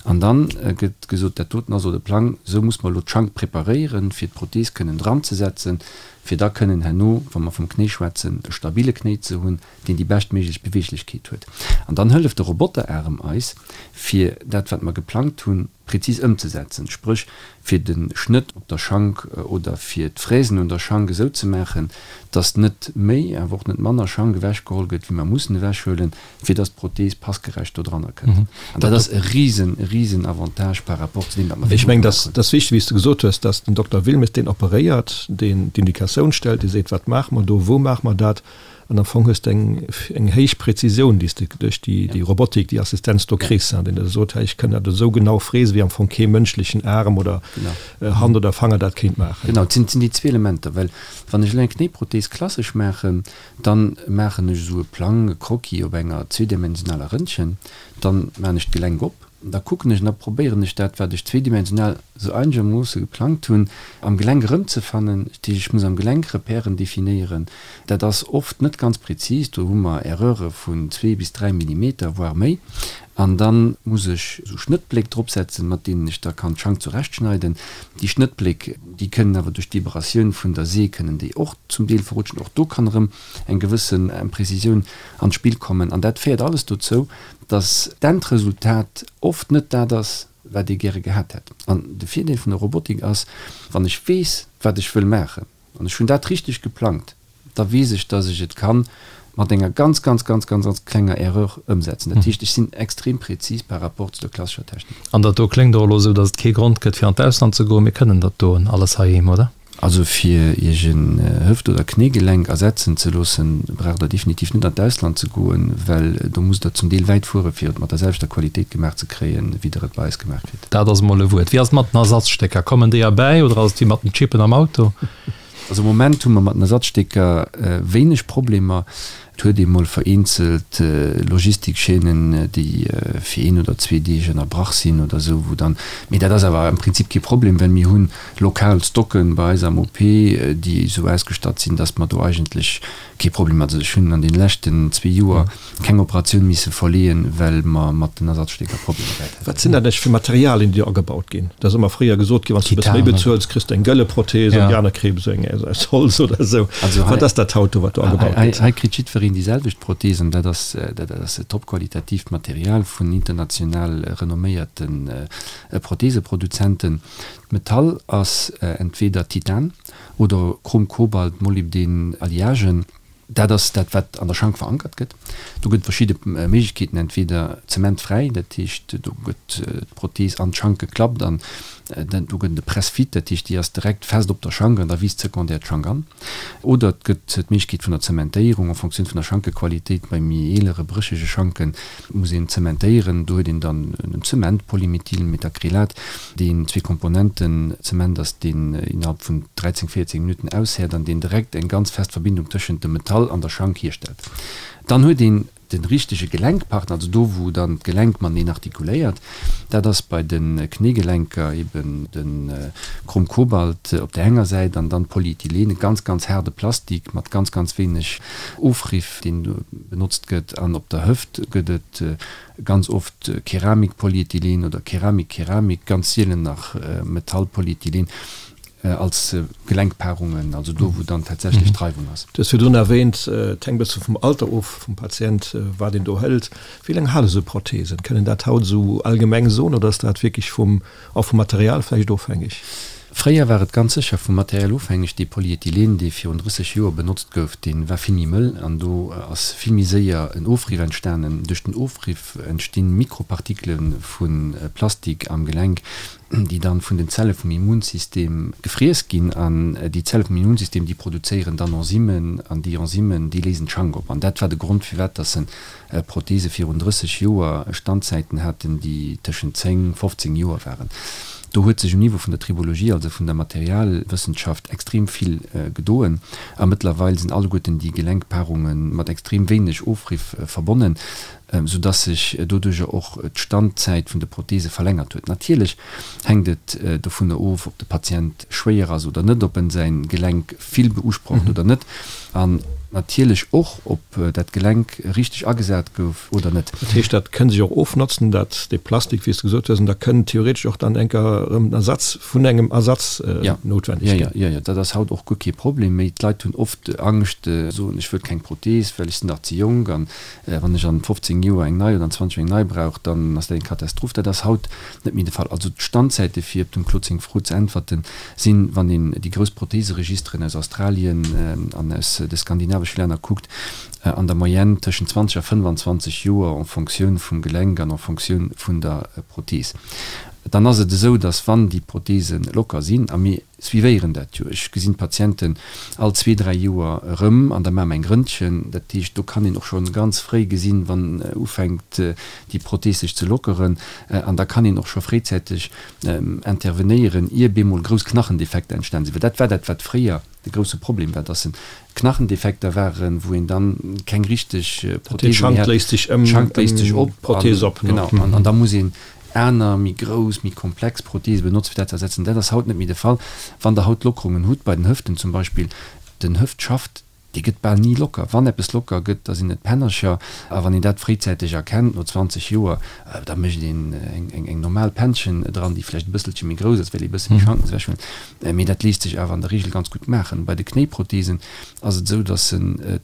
an da gëtt gesot, dat doten ass elo de Plang, esou muss mer elo d'Schank preparéieren, fir d'Prothees kënnen dranzesetzen, fir da kënnen herno, wa mer vum Knéi schwätzen, e stabile Knéi ze hunn, deen déi beschtméiglech Beweeglechkeet huet. An dann hëlleft de Roboteraarem eis, fir dat, wat mer geplangt hunn, prezis ëmzesetzen, spréch fir de Schnëtt op der Schank oder fir d'Fräsen un der Schank esou ze maachen, dass net méi, awer och net manner Schank ewechgeholl gëtt, wéi mer mussen ewechhuelen, fir dass d'Prothees passgerecht do dranner kënnt. An dat ass e risen, risen Avantage par rapport zu deem, wat mer Ech virdru mengen, gemaach hunn. dat ass wichteg, wéi s de gesot hues, dass den Dokter Wilmes deen operéiert, deen d'Indikatioun stellt, dee seet, wat maache mer do, wou maache mer dat, An am Fong hues de eng, eng héich Präzisioun, déi s de duerch déi, déi Robotik, déi Assistenz do kriss, hein, deen der sot, hei, ech kënn dat esou genau fräsen, wéi am Fong kee mënschlechen Aarm oder Hand oder Fanger dat kéint maachen. Genau, et sinn, et sinn déi zwee Elementer, well wann ech elo eng Knéiprothees klassesch maachen, dann maachen ech esou e Plang, e Croquis op enger zweedimensionaler Rëntgen, dann maachen ech d'Gelenk op, Da kucken ech an da probéieren ech dat, wat ech zweedimensional sou einegermoosse geplangt hunn, am Gelenk erëmzefannen. Dat heescht, ech muss am Gelenk Repèren definéieren. Dat ass oft net ganz prezis, do hu mer Erreure vun zwee bis dräi Millimeter, voire méi. An da muss ech esou Schnëttbléck dropsetzen, mat deenen ech da kann d'Schank zurechtschneiden. Déi Schnëttbléck, déi kënnen awer duerch d'Vibratioun vun der See kënnen déi och zum Deel verrutschen. Och do kann erëm eng gewëssen Imprezisioun an d'Spill kommen. An dat féiert alles dozou, dass d'Endresultat oft net dat ass, wat ee gäre gehat hätt. An de Virdeel vun der Robotik ass, wann ech weess, wat ech wëll maachen, an ech hunn dat richteg geplangt, da weess ech, dass ech et kann mat enger ganz, ganz, ganz, ganz, ganz klenger Erreur ëmsetzen. Dat heescht, ech sinn extrem prezis par rapport zu der klassescher Technik. An dat do kléngt och elo esou, dass et kee Grond gëtt, fir an d'Ausland ze goen. Mir kënnen dat doen alles heiheem, oder? Also fir Iech en Hëft oder Knéigelenk ersetzen ze loossen, braucht der definitiv net an d'Ausland ze goen, well do musst der zum Deel wäit fuere fir et mat der selwechter Qualitéit gemaach ze kréien, wéi der et bei eis gemaach kritt. Dat ass emol e Wuert. Wéi ass et mat den Ersatzstécker? Kommen déi erbäi oder ass et wéi mat den Chippen am Auto? Also am Moment hu mer mat den Ersatzstécker wéineg Problemer. Et huet ee mol vereenzelt Logistikchaînen, déi fir een oder zwee Deeg ënnerbrach sinn oder esou, wou dann, mee dat ass awer am Prinzip kee Problem, well mir hunn lokal Stocken bei eis am OP, déi esou ausgestatt sinn, dass mer do eigentlech kee Problem hat. Also ech hunn an deene leschten zwee Joer keng Operatioun misse verleeën, well mer mat den Ersatzstécker Problemer gehat hätten. Wat sinn dat eigentlech fir Materialien, déi do agebaut ginn? Et ass ëmmer fréier gesot ginn, wann s de e bësse méi bezuels, kriss de eng gëlle Prothees an déi aner kréie esou eng aus Holz oder esou. Wat ass dat haut do, wat do agebaut gëtt? Hei kritt jiddwereen déi selwecht Prothees an dat ass dat ass topqualitatiivt Material vun international renomméierte Protheeseproduzenten. D'Metall ass entweeder Titan oder Chrom-Kobalt-Molybdän-Alliagen. Dat ass dat, wat an der Schank verankert gëtt. Do gëtt et verschidde Méiglechkeeten, entweeder zementfräi, dat heescht, do gëtt d'Prothees an d'Schank geklappt an do gëtt et e Press-fit, dat heescht, déi ass direkt fest op der Schank an da wiisst sekondär d'Schank an. Oder et gëtt d'Méiglechkeet vun der Zementéierung en Fonctioun vun der Schankequalitéit. Bei méi eelere, bréchege Schanke muss een zementéieren. Do huet een dann en Zement, Polymethylmethacrylat, deen zwee Komponenten Zement ass, deen innerhalb vun 13, 14 Minutten aushäert an deen direkt eng ganz fest Verbindung tëschent dem Metall an der Schank hierstellt. Dann huet een de richtege Gelenkpartner, also do wou dann d'Gelenk mateneen artikuléiert. Dat ass bei de Knéigelenker eben de Chrom-Kobalt op där enger Säit an dann Polyethylen, e ganz, ganz haarde Plastik mat ganz, ganz wéineg Ofriff, deen do benotzt gëtt. An op der Hëft gëtt et Ganz oft Keramik-Polyethylen oder Keramik-Keramik, ganz sielen nach Metall-Polyethylen als Gelenkpaarungen, also do wou dann tatsächlech d'Reiwung ass. Du hues virdrun erwähnt, et hänkt e bësse vum Alter of vum Patient, wat een do hëlt. Wéi laang hale sou Prothesen? Kënnt een dat haut esou allgemeng soen oder ass dat wierklech vum, och vum Material vläicht ofhängeg? Fréier war et ganz sécher vum Material ofhängeg. Dee Polyethylen, dee virun 30 Joer benotzt gouf, dee war vill méi mëll an do ass vill méi séier en Ofriff entstanen. Duerch den Ofriff entstinn Mikropartikele vu Plastik am Gelenk, déi dann vun den Zelle vum Immunsystem gefriess ginn. An déi Zelle vum Immunsystem, déi produzéieren dann Enzymen an déi Enzymen, déi léisen d'Schank op. An dat war de Grond, firwat dass se Prothese virun 30 Joer Standzäiten haten, déi tëschent 10, 15 Joer waren. Do huet sech um Niveau vun der Tribologie, also vun der Materialwëssenschaft, extrem vill gedoen a mëttlerweil sinn alleguerten déi Gelenkpaarunge mat extrem wéineg Ofriff verbonnen, soudass sech doduerjer och d'Standzäit vun de Prothese verlängert huet. Natierlech hänkt et dovunner of, ob de Patient schwéier ass oder net, ob en säin Gelenk vill beusprocht oder net an natierlech och, ob dat Gelenk richteg agesat gouf oder net. Dat heescht, dat kënn sech och ofnotzen, dat, dee Plastik, wéi s de gesot hues, an da kënn theoretesch och dann enker erëm en Ersatz vun engem Ersatz noutwendeg ginn. Jo, jo, jo, dat ass haut och guer kee Problem méi. D'Leit hunn oft Angscht, soen, ech wëll keng Prothees, well ech sinn nach ze jonk an wann ech an 15 Joer eng nei oder an 20 Joer eng nei brauch, dann ass dat eng Katastroph. Dat ass haut net méi de Fall. Also d'Standzäite, fir op dem Claude seng Fro ze äntwerten, sinn, wann een déi grouss Protheseregisteren aus Australien an aus de skandinavesche Länner kuckt, an der Moyenne tëschent 20 a 25 Joer en Fonctioun vum Gelenk an en Fonctioun vun der Prothees. Dann ass et esou, datt wann déi Protheese locker sinn, a mir suivéieren dat jo, ech gesinn d'Patienten all zwee, dräi Joer erëm an da maache mer eng Röntgen, dat heescht, do kann een och scho ganz fréi gesinn, wann ufänkt déi Prothees sech ze lockeren an da kann een och scho fréizäiteg intervenéieren, ier bemol grouss Knachendefekter entstan sinn. Well dat war dat, wat fréier de grousse Problem war, dass Knachendefekter waren, wou een dann keng richteg Prothese méi hat. D'Schank léist sech op, d'Prothese op, genau, an da muss een aner, méi grouss, méi komplex Prothese benotzen, fir dat ze ersetzen. Dat ass haut net méi de Fall. Wann Der haut Lockerungen hutt, bei den Hëften zum Beispill, den Hëftschaft, Dee gëtt bal ni locker. Wann eppes locker gëtt, da sinn et d'Pännercher. A wann een dat fréizäiteg erkennt, no 20 Joer, da mécht een eng normal Pännchen dran, déi vläicht e bësselche méi grouss ass, well ee bësse méi Schanken ewech huet. Mee dat léisst sech awer an der Reegel ganz gutt maachen. Bei de Knéiprotheesen ass et esou, datt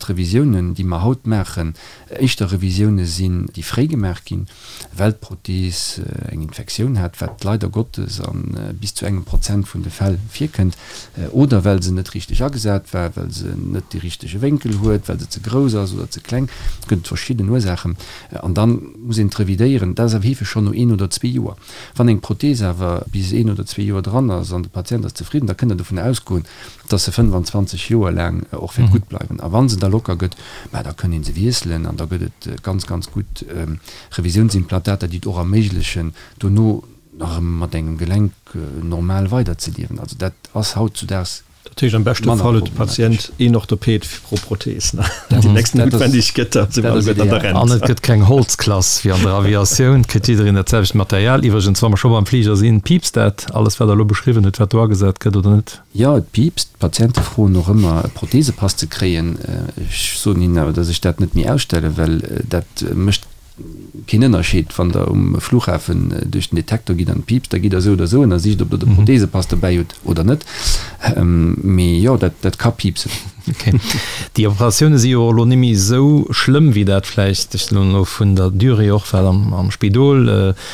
d'Revisiounen, déi mer haut maachen, éischter Revisioune sinn, déi fréi gemaach ginn. well d'Prothees eng Infektioun hat, wat leider Gottes a bis zu engem Prozent vun de Fäll virkënnt, oder well se net richteg agesat war, well se net dee richtege Wénkel huet, well se ze grouss ass oder ze kleng. Et gëtt verschidden Ursaachen an da muss een d'revidéieren. Dat ass awer heefeg schonn no een oder zwee Joer. Wann eng Prothees awer bis een oder zwee Joer dran ass an de Patient ass zefridden, da kënnt Der dovun ausgoen, dass se 25 Joer laang och wäert gutt bleiwen. A wa se da locker gëtt, mä da kënn ee se wiesselen an da gëtt et ganz, ganz gutt Revisiounsimplantater, déi et och erméiglechen, dono nach erëm mat engem Gelenk normal weiderzeliewen. Also dat ass hautzudaags Dat heescht, am beschte manner Fall huet de problematesch. Patient een Orthoped pro Prothees, ne? Dat déi nächst noutwendeg gëtt, da si mer alleguerten an der Rent. An et gëtt keng Holzklass wéi an der Aviatioun, et kritt jiddereen dat selwecht Material. Iwwregens, wa mer scho beim Fliger sinn, piipst dat alles, wat Der elo beschriwwen hutt, wat do agesat gëtt, oder net? Jo, et piipst. D'Patiente froen och ëmmer, e Prothesepass ze kréien. Ech soen hinnen awer, dass ech dat net méi ausstellen, well dat mécht keen Ënnerscheed. Wann Der um Flughafen duerch den Detektor gitt an et piipst, da gitt Der esou oder esou ënnersicht, ob Der de Prothesepass dobäi hutt oder net. Mee jo, dat ka piipsen. Ok. Déi Operatioune si jo och elo net méi esou schlëmm, wéi dat vläicht, ech soen elo vun der Durée och, wat am Spidol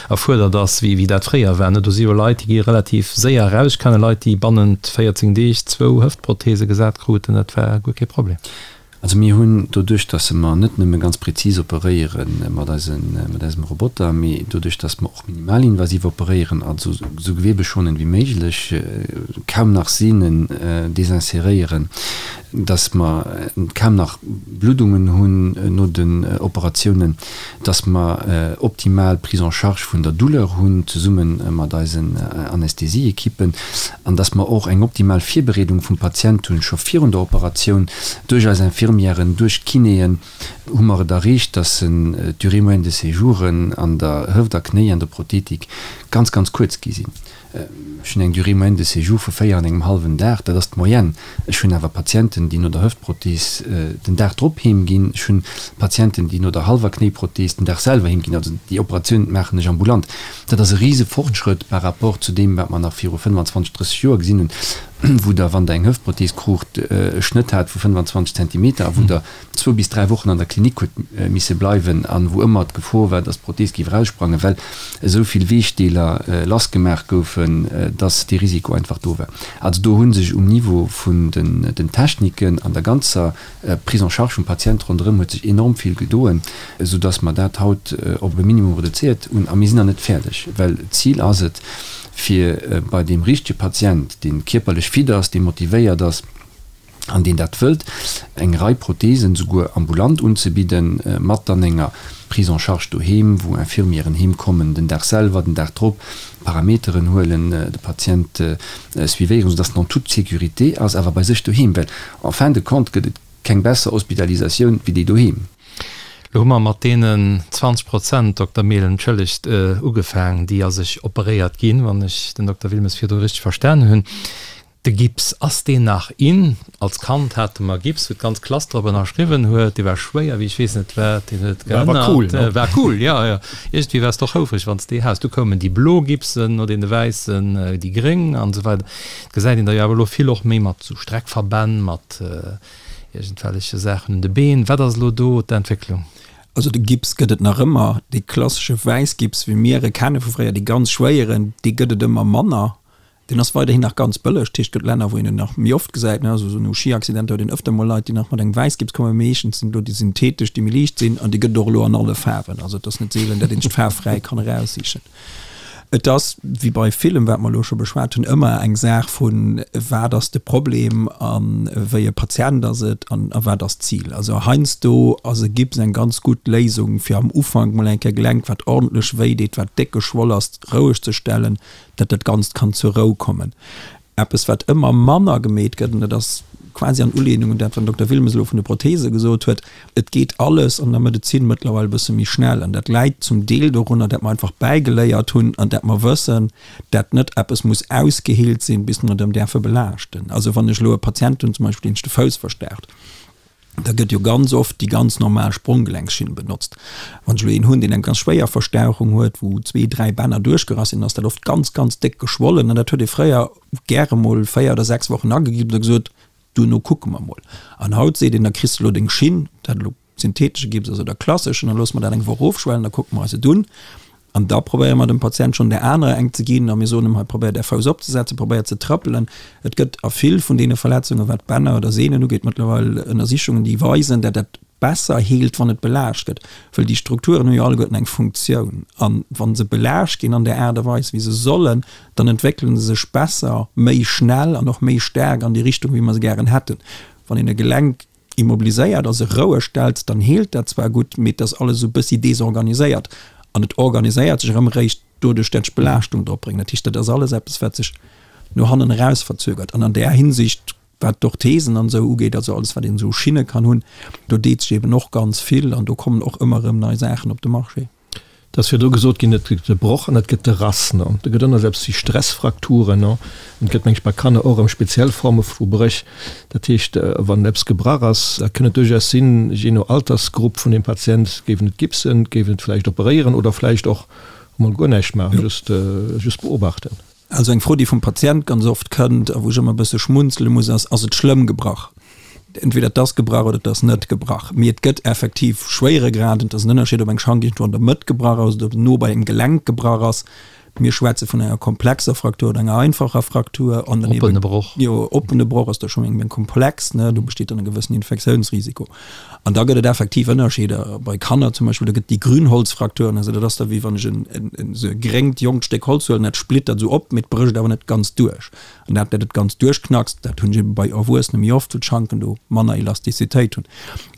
erfuerdert ass, wéi dat fréier war. Do si jo Leit, déi gi relativ séier eraus. Ech kenne Leit, déi bannent 14 Deeg zwou Hëftprothese gesat kruten. Dat war guer kee Problem. Also mir hunn doduerch, dass mer net nëmme ganz prezis operéiere mat eisen, mat eisem Roboter, mee doduerch, dass mer och minimalinvasiv operéieren, also esou gewebeschonend wéi méiglech, kaum nach Sehnen desinseréieren, dass mer kaum nach Bluddungen hunn no den Operatiounen, dass mer optimal Prise en charge vun der Douleur hunn, zesumme mat eisen Anästhesieekippen, an dass mer och eng optimal Virbereedung vum Patient hunn, scho virun der Operatioun, duerch eis Infirmièren, duerch d'Kinéen, hu mer et erreecht, dass d'Durée moyenne de séjouren an der Hëft a Knéiendoprothetik ganz, ganz kuerz gi sinn. Ech hunn eng Durée moyenne de séjour vu 4 an engem hallwen Dag, dat ass d'Moyenne. Ech hunn awer Patienten, déi no der Hëftprothees den Dag drop heem ginn. Ech hunn Patienten, déi no der hallwer Knéiprothees den Dag selwer heem ginn. Also déi Operatioun maachen ech ambulant. Dat ass e rise Fortschrëtt par rapport zu deem, wat mer nach viru 25, 30 Joer gesinn hunn, wou Der, wann Der eng Hëftprothees kruucht, e Schnëtt hat vu 25 Zentimeter a wou Der zwou bis dräi Wochen an der Klinik huet misse bleiwen an wou ëmmer d'Gefor war, dass d'Prothees géif eraussprangen, well esou vill Weechdeeler lassgemaach goufen. goufen, dass dee Risiko einfach do war. Also do hu sech um Niveau vun den Techniken an der ganzer Prise en charge vum Patient ronderëm huet sech enorm vill gedoen, soudass mer dat haut op e Minimum reduzéiert hunn. A mir sinn nach net fäerdeg, well d'Zil ass et, fir bei deem richtege Patient, dee kierperlech fit ass, dee motivéiert ass an deen dat wëllt, eng Rei Prothesen souguer ambulant unzebidden, mat dann enger Prise en charge doheem, wou Infirmieren heem kommen, den Dag selwer, den Dag drop, Parameteren huelen, de Patient suivéieren, soudass en en toute sécurité ass, awer bei sech doheem, well en fin de compte gëtt et keng besser Hospitalisatioun wéi déi doheem. Lo hu mer mat deenen 20 Prozent, Dokter Mehlen, entschëllegt, ugefaang, déi a sech operéiert ginn, wann ech den Dokter Wilmes virdru richteg verstanen hunn. De Gips, ass deen nach in? Als Kand hate mer Gips, wou d'ganz Klass drop ënnerschriwwen huet. Dee war schwéier wéi ech weess net wat. Deen huet War awer cool, ne? War cool, jo, jo. Iergendwéi waars de och houfreg, wann s de dee has. Du koumen déi blo Gipsen, no deene wäissen déi gréng an esou weider. Et gesäit een der jo awer elo vill och méi mat sou Streckverbänn, mat iergendwelleche Saachen un de Been. Wat ass elo do d'Entwécklung? Also de Gips gëtt et nach ëmmer. Dee klassesche Wäissgips, wéi mir e kenne vu fréier, dee ganz schwéieren, dee gëtt et ëmmer manner. Deen ass weiderhin nach ganz bëlleg. Dat heescht, et gëtt Länner, wou een en nach méi oft gesäit, ne, also esou no Schiaccidenter huet een ëfter mol Leit, déi nach mat engem Wäissgips kommen. Meeschtens sinn elo déi synthetesch, déi méi liicht sinn, an déi gëtt et och elo an alle Faarwen. Also et ass net seelen, dat een sech d'Faarf fräi kann eraussichen. Et ass, wéi bei villem, wat mer elo scho beschwat hunn, ëmmer eng Saach vun, wat ass de Problem a wéi e Patient ass et an a wat ass d'Zil. Also heiansdo ass e Gips eng ganz gutt Léisung, fir am Ufank mol eng Kéier Gelenk, wat ordentlech wéideet, wat déck geschwoll ass, roueg ze stellen, dat dat Ganzt kann zur Rou kommen. Eppes, wat ëmmer manner gemeet gëtt, an dat ass quasi an Ulehnung un dat, wat den Dokter Wilmes elo vun de Prothese gesot huet, Et geet alles an der Medezin mëttlerweil e bësse méi schnell. An dat läit zum Deel dorunner, dat mer einfach bäigeléiert hunn an dat mer wëssen, dat net eppes muss ausgeheelt sinn, bis mer et erëm däerfe belaaschten. Also wann ech elo e Patient hunn zum Beispill, deen sech de Fouss verstaucht, Da gëtt jo ganz oft déi ganz normal Spronggelenksschinn benotzt. Wann ech elo een hunn, deen eng ganz schwéier Verstauchung huet, wou zwee, dräi Bänner duerchgerass sinn, ass dat oft ganz, ganz déck geschwollen. An dat huet ee fréier gäre mol véier oder sechs Wochen agegipst a gesot, duerno kucke mer mol. An haut seet een, da kriss de elo deng Schinn, dat elo syntheetesche Gips ass oder klasseschen, da loosse mer dat eng Woch ofschwellen, da kucke mer eis et un. An da probéiere mer dem Patient schonn där anerer eng ze ginn a mir soen em, hei probéier däi Fouss opzesetzen, probéier ze trëppelen. Et gëtt a vill vun deene Verletzungen, wat d'Bänner oder Sehnen ugeet, mëttlerweil Ënnersichungen, déi weisen, dat dat besser heelt, wann et belaascht gëtt. Wëll déi Strukturen hu jo alleguerten eng Funktioun. A wa se belaascht ginn an där Aart a Weis, wéi se sollen, dann entwéckele se sech besser, méi schnell an och méi staark an déi Richtung, wéi mer se gären hätten. Wann een e Gelenk immobiliséiert a se roueg stellt, dann heelt dat zwar gutt, mee et ass alles esou e bëssi desorganiséiert an et organiséiert sech erëm eréischt doduerch, dat ech Belaaschtung drop bréngen. Dat heescht, dat ass alles eppes, wat sech no hannen eraus verzögert. An an där Hinsicht, wat d'Orthesen an esou ugeet, also alles, wat een esou u Schinne kann hunn, do deet sech eeben och ganz vill an do kommen och ëmmer erëm nei Saachen op de Marché. Et ass virdru gesot ginn, et gëtt de Broch an et gëtt de Rass. Do gëtt ënner eppes wéi Stressfrakturen. An et gëtt, meng ech, bei Kanner och erëm speziell Forme vu Bréch. Dat heescht, wann eppes gebrach ass, da kënn et duerchaus sinn, jee no Altersgrupp vun dem Patient, géif en et gipsen, géif en et vläicht operéieren oder vläicht och emol guer näischt maachen, just, just beobachten. Also eng Fro, déi vum Patient ganz oft kënnt a wou ech ëmmer e bësse schmunzele muss, ass, Ass et schlëmm gebrach? Entweder et ass gebrach oder et ass net gebrach. Mee et gëtt effektiv Schwéieregraden. Et ass en Ënnerscheed, ob eng Schank iergendwou an der Mëtt gebrach ass oder ob se no bei engem Gelenk gebrach ass. Mir schwätze vun enger komplexer Fraktur oder enger einfacher Fraktur. An dann Oppene Broch. Jo, oppene Broch ass da scho méi komplex, ne? Do besteet dann e gewëssen Infektiounsrisiko. An da gëtt et effektiv Ënnerscheeder bei Kanner zum Beispill, do gëtt déi Grünholzfraktur, also dat ass da wéi wann ech en esou e gréngt jonkt Stéck Holz huelen, dat splittert esou op, mee et brécht awer net ganz duerch. An dat, dat et ganz duerchknackst, dat hunn ech ebe bei Erwuessene méi oft, wou d'Schanken do manner Elastizitéit hunn.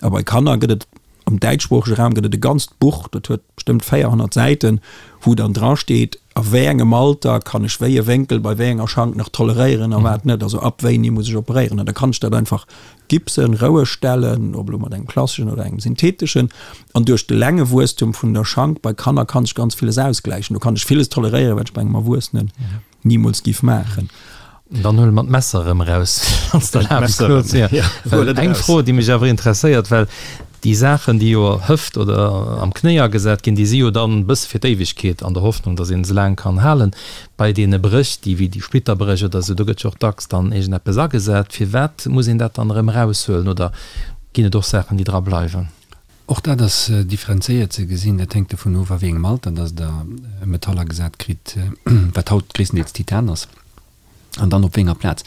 A bei Kanner gëtt et, am däitschsproochege Raum gëtt et e ganzt Buch, dat huet bestëmmt 400 Säiten, wou dann dra steet, a wéi engem Alter kann ech wéi e Wénkel bei wéi enger Schank nach toleréieren a wat net, also ab wéini muss ech operéieren. An da kann ech dat einfach gipsen, roueg stellen, ob elo mat engem klasseschen oder engem syntheteschen. An duerch de Längewuesstum vun der Schank bei Kanner kann sech ganz villes ausgläichen. Do kann ech villes toleréieren, wat ech bei engem Erwuessenen nimools giff maachen. Dann huele mer d'Messer erëm eraus, wann s de erlaabs, Claude. Well eng Fro, déi mech awer interesséiert, well déi Saachen, déi jo Hëft oder am Knéi agesat ginn, déi si jo dann e bësse fir d'Éiwegkeet, an der Hoffnung, datt een se laang kann halen. Bei deene Bréch, déi wéi déi Splitterbréch oder esou, do gëtt jo och dacks dann iergendeppes agesat. Firwat muss een dat dann erëm eraushuelen oder ginn et och Saachen, déi dra bleiwen? Och dat ass differenzéiert ze gesinn. Dat hänkt dovun of, a wéi engem Alter dass Der e Metall agesat kritt, wat haut gréisstendeels Titan ass, an dann op wéi enger Plaz.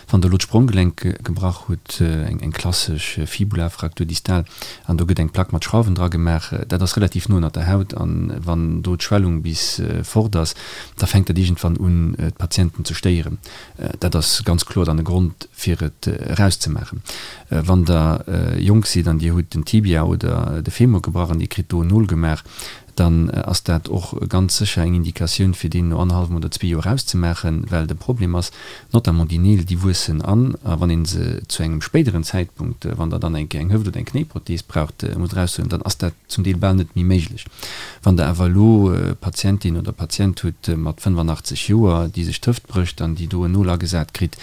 Wann Der elo d'Spronggelenk gebrach hutt, eng klassesch Fibulafraktur distal, an do gëtt eng Plack mat Schrauwen dra gemaach, dat ass relativ no ënnert der Haut, an wann do d'Schwellung bis fort ass, da fänkt dat iergendwann un, d'Patienten ze stéieren. Dat ass ganz kloer dann e Grond, fir et erauszemaachen. Wann Der jonk sidd an Dir hutt den Tibia oder de Femur gebrach an Dir kritt do en Nol gemaach, dann ass dat och ganz sécher eng Indikatioun, fir deen no annerhallwem oder zwee Joer erauszemaachen, well de Problem ass, notamment déi Neel, déi wuessen an, a wann ee se zu engem spéideren Zäitpunkt, wann Der dann eng Kéier eng Hëft oder eng Knéiprothees braucht, musst eraushuelen, dann ass dat zum Deel bal net méi méiglech. Wann Der awer elo Patientin oder Patient hutt mat 85 Joer, déi sech d'Hëft brécht an déi do en Nol agesat kritt,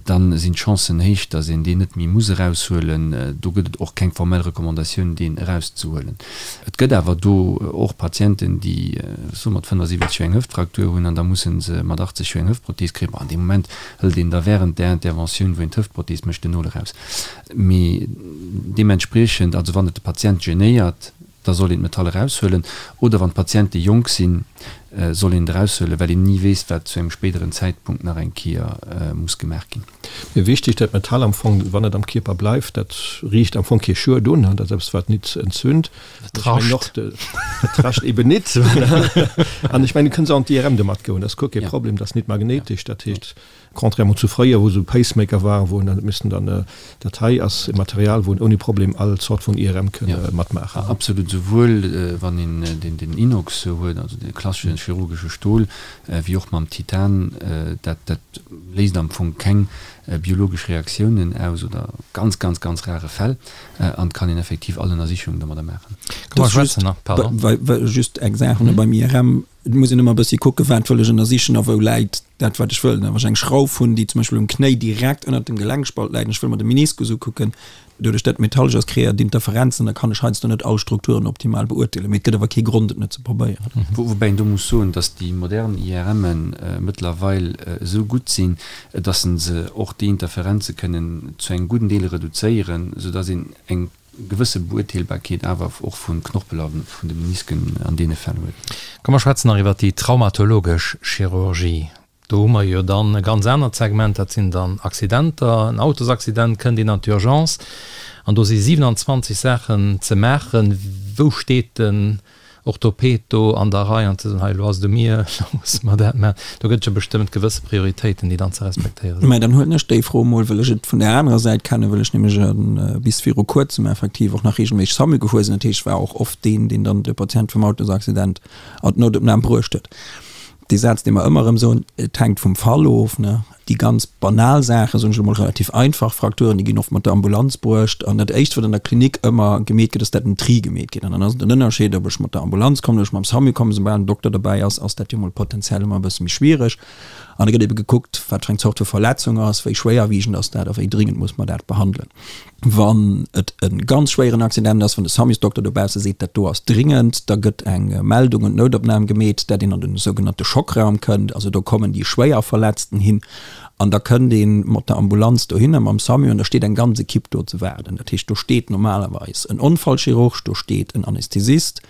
da sinn d'Chancen héich, datt een deen net méi muss eraushuelen. Do gëtt et och keng formell Recommandatioun, deen erauszehuelen. Et gëtt awer do och Patienten, déi, soe mat 75 Joer eng Hëftfraktur hunn an da musse se mat 80 Joer eng Hëftprothees kréien. Bon, an deem Moment hëlt een da während där Interventioun, wou een d'Hëftprothees mécht, den Nol eraus. Mee deementspriechend, also wann et de Patient genéiert, da soll een d'Metall eraushuelen, oder wann d'Patiente jonk sinn, soll een et eraushuelen, well een ni weess, wat zu engem spéideren Zäitpunkt nach eng Kéier muss gemaach ginn. Mee wichtig, dat Metall am Fong, wann et am Kierper bleift, dat riicht am Fong kee Schued un, dat ass eppes, wat nit entzünd. Et rascht. Et rascht eben nit. An ech mengen, du kënns och an d'IRM domat goen, dat ass guer kee Problem, dat ass nit magnéitesch, dat heescht, Contrairement zu fréier, wou esou Pacemaker waren, wou en dann huet missen dann, dat hei ass e Material, wou en ouni Problem all Zort vun IRM kënn matmaachen. Absolut, souwuel wann een den Inox huet, also de klassesche chirurgesche Stol, wéi och mam Titan. Dat dat léist am Fong keng biologesch Reaktiounen aus oder ganz, ganz, ganz rare Fäll an et kann een effektiv all Ënnersichungen domadder maachen. Komm mer schwätzen nach, pardon. Just eng Saach beim IRM, Et muss een ëmmer e bëssi kucken, wat wëll ech ënnersichen a wou läit dat, wat ech wëll. Wann ech eng Schrauf hunn, déi zum Beispill um Knéi direkt ënnert dem Gelenkspalt läit an ech wëll mer de Meniskus ukucken, doduerch dat et metallesch ass, kreéiert et Interferenzen, da kann ech heiansdo net all Strukturen optimal beurteelen. Mee et gëtt awer kee Grond, et net ze probéieren. Woubäi een do muss soen, datt déi modern IRMe mëttlerweil esou gutt sinn, datt se och déi Interferenze kënnen zu engem gudden Deel reduzéieren, soudatt een eng gewësse Beurteelbarkeet awer och vum Knorpel a vun de Menisken an deene Fäll huet. Komm mer schwätzen nach iwwert déi traumatologesch Chirurgie. Do hu mer jo dann e ganz anert Segment, dat sinn dann Accidenter. En Autosaccident, kënnt een an d'Urgence an do si 27 Saachen ze maachen. Wou steet den Orthoped do an der Rei an ze soen, hei elo ass et u mir, elo musse mer dat maachen. Do gëtt et jo bestëmmt gewësse Prioritéiten, déi dann ze respektéiere sinn. Mä dann huelen ech déi Fro emol, wëll ech et vun där anerer Säit kennen, wëll ech nämlech bis viru kuerzem effektiv och nach reegelméisseg SAMU gefuer sinn. Dat heescht, ech war och oft deen, deen dann de Patient vum Autosaccident an d'Noutopnam bruecht huet. Dee Saz, dee mer ëmmer erëm soen, et hänkt vum Fall of, ne? Déi ganz banal Saachen, soen ech elo mol, relativ einfach Frakturen, déi ginn oft mat der Ambulanz bruecht. An dat Éischt, wat an der Klinik ëmmer gemeet gëtt, ass, dat en Tri gemeet gëtt. An dann ass et en Ënnerscheed, ob ech mat der Ambulanz kommen oder ech mam SAMU kommen. Soubal en Dokter dobäi ass, ass dat jo mol potenziell ëmmer e bësse méi schwiereg. An da gëtt ebe gekuckt, wat fir eng Zort vu Verletzung ass, wéi schwéierwiegend ass dat a wéi dringend muss mer dat behandelen. Wann et e ganz schwéieren Accident ass, wann de Samusdokter dobausse seet, dat do ass dringend, da gëtt eng Meldung un d'Noutopnam gemeet, dat een an den sougenannte Schockraum kënnt. Also do kommen déi Schwéierverletzten hin an da kënnt ee mat der Ambulanz dohinner, mam Samu, an da steet eng ganz Ekipp do ze waarden. Dat heescht, do steet normalerweis en Onfallchirurg, do steet en Anästhesist,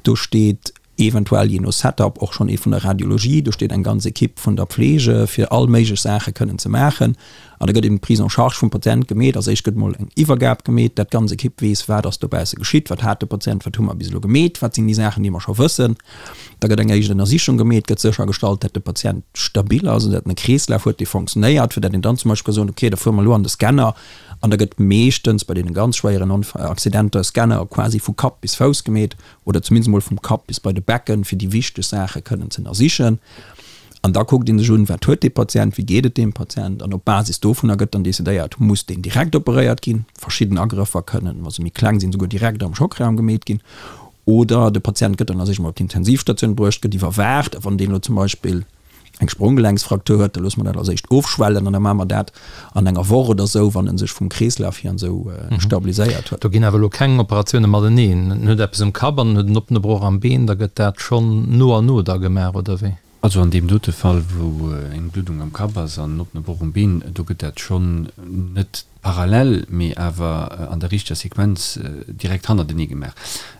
do steet eventuell jee no Setup och schonn ee vun der Radiologie, do steet eng ganz Ekipp vun der Pflege fir all méiglech Saache kënnen ze maachen an da gëtt eben d'Prise en charge vum Patient gemeet. Als éischt gëtt mol eng Iwwergab gemeet, dat d'ganz Ekipp weess, wat ass dobausse geschitt, wat hat de Patient, wat hu mer bis elo gemeet, wat sinn déi Saachen, déi mer scho wëssen. Da gëtt eng éischt Ënnersichung gemeet, gëtt séchergestallt, dat de Patient stabil ass an dat en e Kreeslaf huet, dee fonctionnéiert, fir dat een dann zum Beispill ka soen, okay, da fuere mer elo an de Scanner an da gëtt meeschtens bei deene ganz schwéieren Accidenter e Scanner quasi vu Kapp bis Fouss gemeet, oder zumindest emol vum Kapp bis bei de Becken, fir déi wichteg Saache kënnen ze ënnersichen. An da kuckt ee sech un, wat huet dee Patient, wéi geet et deem Patient, an op Basis dovunner gëtt dann decidéiert, muss deen direkt operéiert ginn, verschidden Agrëffer kënnen, wa se méi kleng sinn, souguer direkt am Schockraum gemeet ginn, oder de Patient gëtt dann a sech emol op d'Intensivstatioun bruecht, gëtt iwwerwaacht, a wann deen elo zum Beispill eng Spronggelenksfraktur huet, da loosse mer dat als éischt ofschwellen an da maache mer dat an enger Woch oder esou, wann en sech vum Kreeslaf hier an esou stabiliséiert huet. Do ginn awer elo keng Operatioune mateneen. En huet eppes um Kapp an en huet en oppene Broch am Been, da gëtt dat schonn no an no da gemaach, oder wéi? Also an deem dote Fall, wou eng Bluddung am Kapp ass an en oppene Broch um Been, do gëtt dat schonn net. parallel, mee awer an der richteger Sequenz direkt hannertenee gemaach.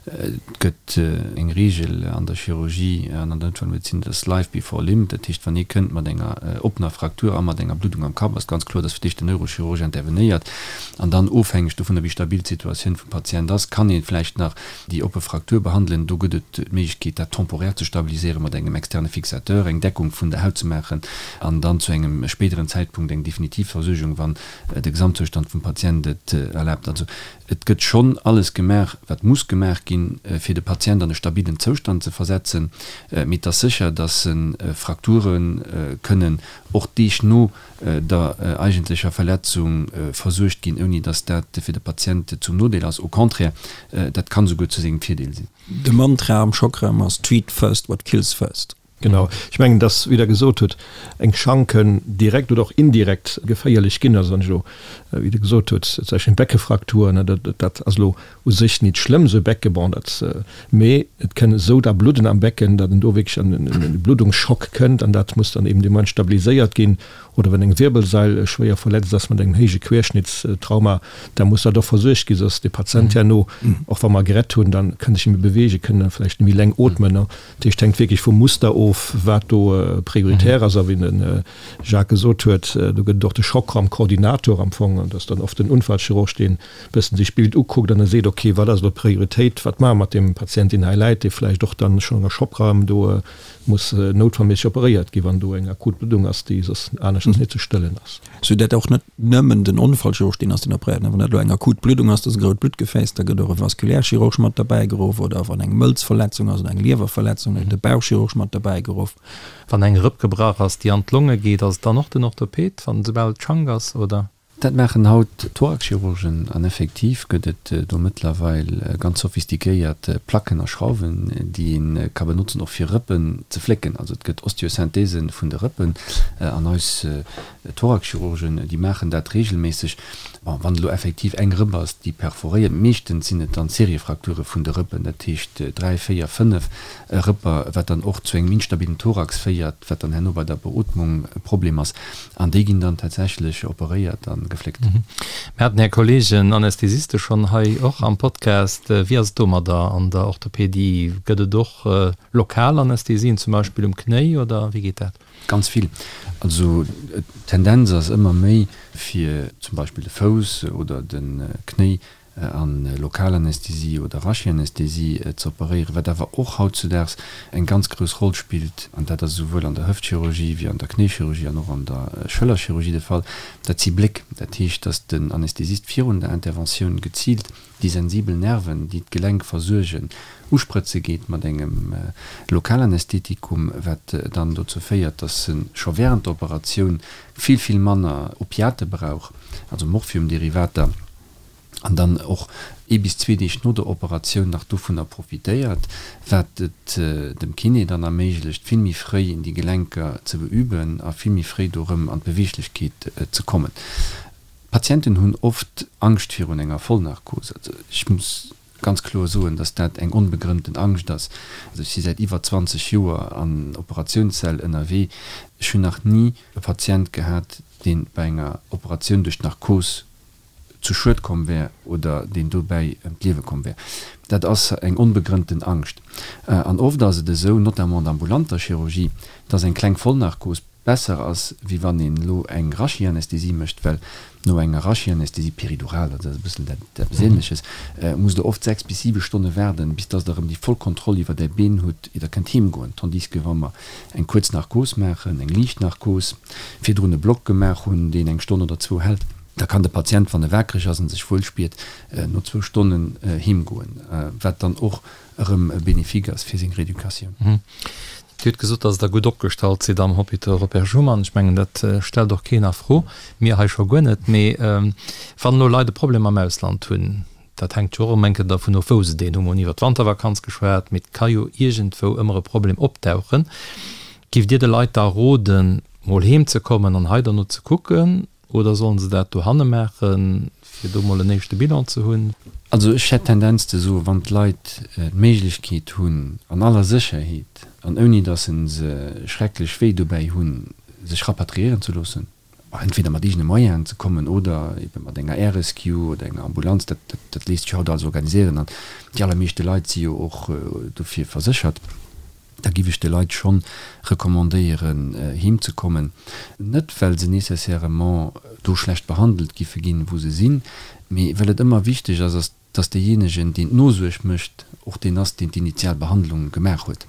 Et gëtt eng Reegel an der Chirurgie an an der Noutfallmedezin, dat ass Life before limb. Dat heescht, wann ee kënnt mat enger oppener Fraktur a mat enger Bluddung am Kapp, ass ganz kloer, dass fir d'éischt den Neurochirurg intervenéiert an dann, ofhängeg dovunner wéi stabil d'Situatioun vum Patient ass, kann ee vläicht nach déi oppe Fraktur behandelen. Do gëtt et d'Méiglechkeet, dat temporär ze stabiliséieren mat engem externe Fixateur, eng Deckung vun der Haut ze maachen an dann zu engem spéideren Zäitpunkt eng definitiv Versuergung, wann de Gesamtzoustand vum Patient et erlaabt. Also et gëtt schonn alles gemaach, wat muss gemaach ginn, fir de Patient an e stabilen Zoustand ze versetzen. Mee et ass sécher, dass Frakture kënnen och Deeg no der eigentlecher Verletzung versuergt ginn, ouni dass dat fir de Patient zum Nodeel ass. Au contraire, dat kann esouguer zu sengem Virdeel sinn. De Mantra am Schockraum ass Treat first what kills first. Genau. Ech mengen, dass, wéi Der gesot hutt, eng Schank kënn direkt oder och indirekt geféierlech ginn. Also wann ech elo, wéi Der gesot hutt, zum Beispill eng Beckefraktur, ne, dat, dat ass elo u sech nit schlëmm, esou e Becke, bon, dat, mee et kënn esou da Bludden am Becken, datt en do wierklech an en Bluddungsschock kënnt an dat muss dann eben dee Moment stabiliséiert ginn. Oder wann eng Wirbelsail schwéier verletzt ass mat engem héije Querschnittstrauma, da muss dat och versuergt ginn, soss de Patient herno, och wa mer gerett hunn, dann kënn sech net méi beweegen, kënn vläicht net méi leng ootmen. Dat heescht, hänkt wierklech vum Muster of, wat do prioritär ass. A wéi de Jacques gesot huet, do gëtt et och de Schockraumkoordinator am Fong, an dat ass dann oft den Unfallchirurg, deen e bëssen sech d'Bild ukuckt an da seet, okay, wat ass elo d'Prioritéit, wat maache mer mat deem Patient, deen hei läit, dee vläicht och dann schonn an der Schockraum do muss noutfallméisseg operéiert ginn, wann do eng akut Bluddung ass, déi soss aneschters net ze stëllen ass. Sou dat och net nëmmen den Onfallchirurg deen ass, deen operéiert. Wann dat elo eng akut Bluddung ass, dat ass e grout Bluttgefääss, da gëtt och e Vaskulärchirurg mat derbäi geruff. Oder wann eng Mëlzverletzung ass oder eng Liewerverletzung, da gëtt de Bauchchirurg mat derbäi geruff. Wann eng Rëpp gebrach ass, déi an d'Longe geet, ass et dann och den Orthoped, wann soubal et Schank ass, oder? Dat maachen haut Thoraxchirurgen an effektiv gëtt et do mëttlerweil ganz sophistiquéiert Placken a Schrauwen, déi ee ka benotzen och fir Rëppen ze flécken. Also et gëtt Osteosynthese vun de Rëppen an eis Thoraxchirurgen, déi maachen dat reegelméisseg. Bon, wann et elo effektiv eng Rëpp ass, déi perforéiert, meeschtens sinn et dann Seriefrakture vun de Rëppen, dat heescht 3, 4, 5 Rëpper, wat dann och zu engem instabilen Thorax féiert, wat dann herno bei der Beootmung e Problem ass. An déi ginn dann tatsächlech operéiert a gefléckt. Mir haten Här Kollegen Anästhesiste schonn hei och am Podcast. Wéi ass et domadder an der Orthopedie? Gëtt et och lokal Anästhesien, zum Beispill um Knéi, oder wéi geet dat? Ganz vill. Also d'Tendenz ass ëmmer méi, fir zum Beispill de Fouss oder de Knéi an Lokalanästhesie oder Rachianästhesie ze operéieren, wat awer och hautzudaags eng ganz grouss Roll spillt, an dat ass esouwuel an der Hëftchirurgie wéi an der Knéichirurgie an och an der Schëllerchirurgie de Fall, dat si Bléck. Dat heescht, dass den Anästhesist virun der Interventioun geziilt déi sensibel Nerven, déi d'Gelenk versuergen, usprëtze geet mat engem Lokalanästhetikum, wat dann dozou féiert, dass e scho während der Operatioun vill, vill manner Opiate brauch, also Morphiumderivater. an dann och ee bis zwee Deeg no der Operatioun nach dovunner profitéiert, wat et dem Kiné dann erméiglecht, vill méi fréi déi Gelenker ze beüben a vill méi fréi do erëm an d'Beweeglechkeet ze kommen. D'Patienten hunn oft Angscht virun enger Vollnarkos. Also ech muss ganz kloer soen, dass dat eng onbegrënnten Angscht ass. Also ech si säit iwwer 20 Joer an Operatiounssäll ënnerwee, ech hunn nach ni e Patient gehat, dee bei enger Operatioun duerch d'Narkos zu Schued komm wär oder deen dobäi ëm d'Liewe komm wär. Dat ass eng onbegrënnten Angscht. An oft ass et esou, notamment an der ambulanter Chirurgie, dass eng kleng Vollnarkos besser ass, wéi wann een elo eng Rachianästhesie mécht, well no enger Rachianästhesie, Péridural, dat ass e bëssen dat eppes Ähnleches, musst Der oft 6 bis 7 Stonne waarden, bis dass Der erëm déi voll Kontroll iwwer Är Been hutt, ier Der kënnt heemgoen. Tandis que wa mer eng kuerz Narkos maachen, eng liicht Narkos, virdrun e Block gemaach hunn, deen eng Stonn oder zwou hält, Da kann de Patient, wann e waakreg ass an sech wuel spiert, no zwou Stonnen heem goen, wat dann och erëm bénéfique ass fir seng Rééducatioun. Dir hutt gesot, dass Der gutt opgestallt sidd am Hôpital Robert Schuman. Ech mengen, dat stellt och keen a Fro, mir hei scho guer net. Mee wann elo Leit e Problem am Ausland hunn, dat hänkt jo och ëm eng Kéier dervun of, wou se deen hunn. Mir hunn iwwer d'Wantervakanz geschwat, mee et ka jo iergendwou ëmmer e Problem opdauchen. Giff Dir de Leit da roden, mol heem ze kommen an hei derno ze kucken? Oder sollen se dat dohanne maachen, fir do mol en éischte Bilan ze hunn? Also ech hätt d'Tendenz ze soen, wann d'Leit d'Méiglechkeet hunn, an aller Sécherheet an ouni datt se schrecklech wéi dobäi hunn, sech rapatriéieren ze loossen. Entweder mat eegene Moyenen ze kommen oder ebe mat enger Air Rescue oder enger Ambulanz. Dat, dat léisst sech haut alles organiséieren an déi allermeeschte Leit si jo och dofir verséchert. Da giff ech de Leit schonn recommandéieren heem ze kommen. Net well se nécessairement do schlecht behandelt giffe ginn, wou se sinn, mee well et ëmmer wichteg ass, ass dass deejéinegen, deen d'Nosuerg mécht, och deen ass, deen d'initial Behandlung gemaach huet.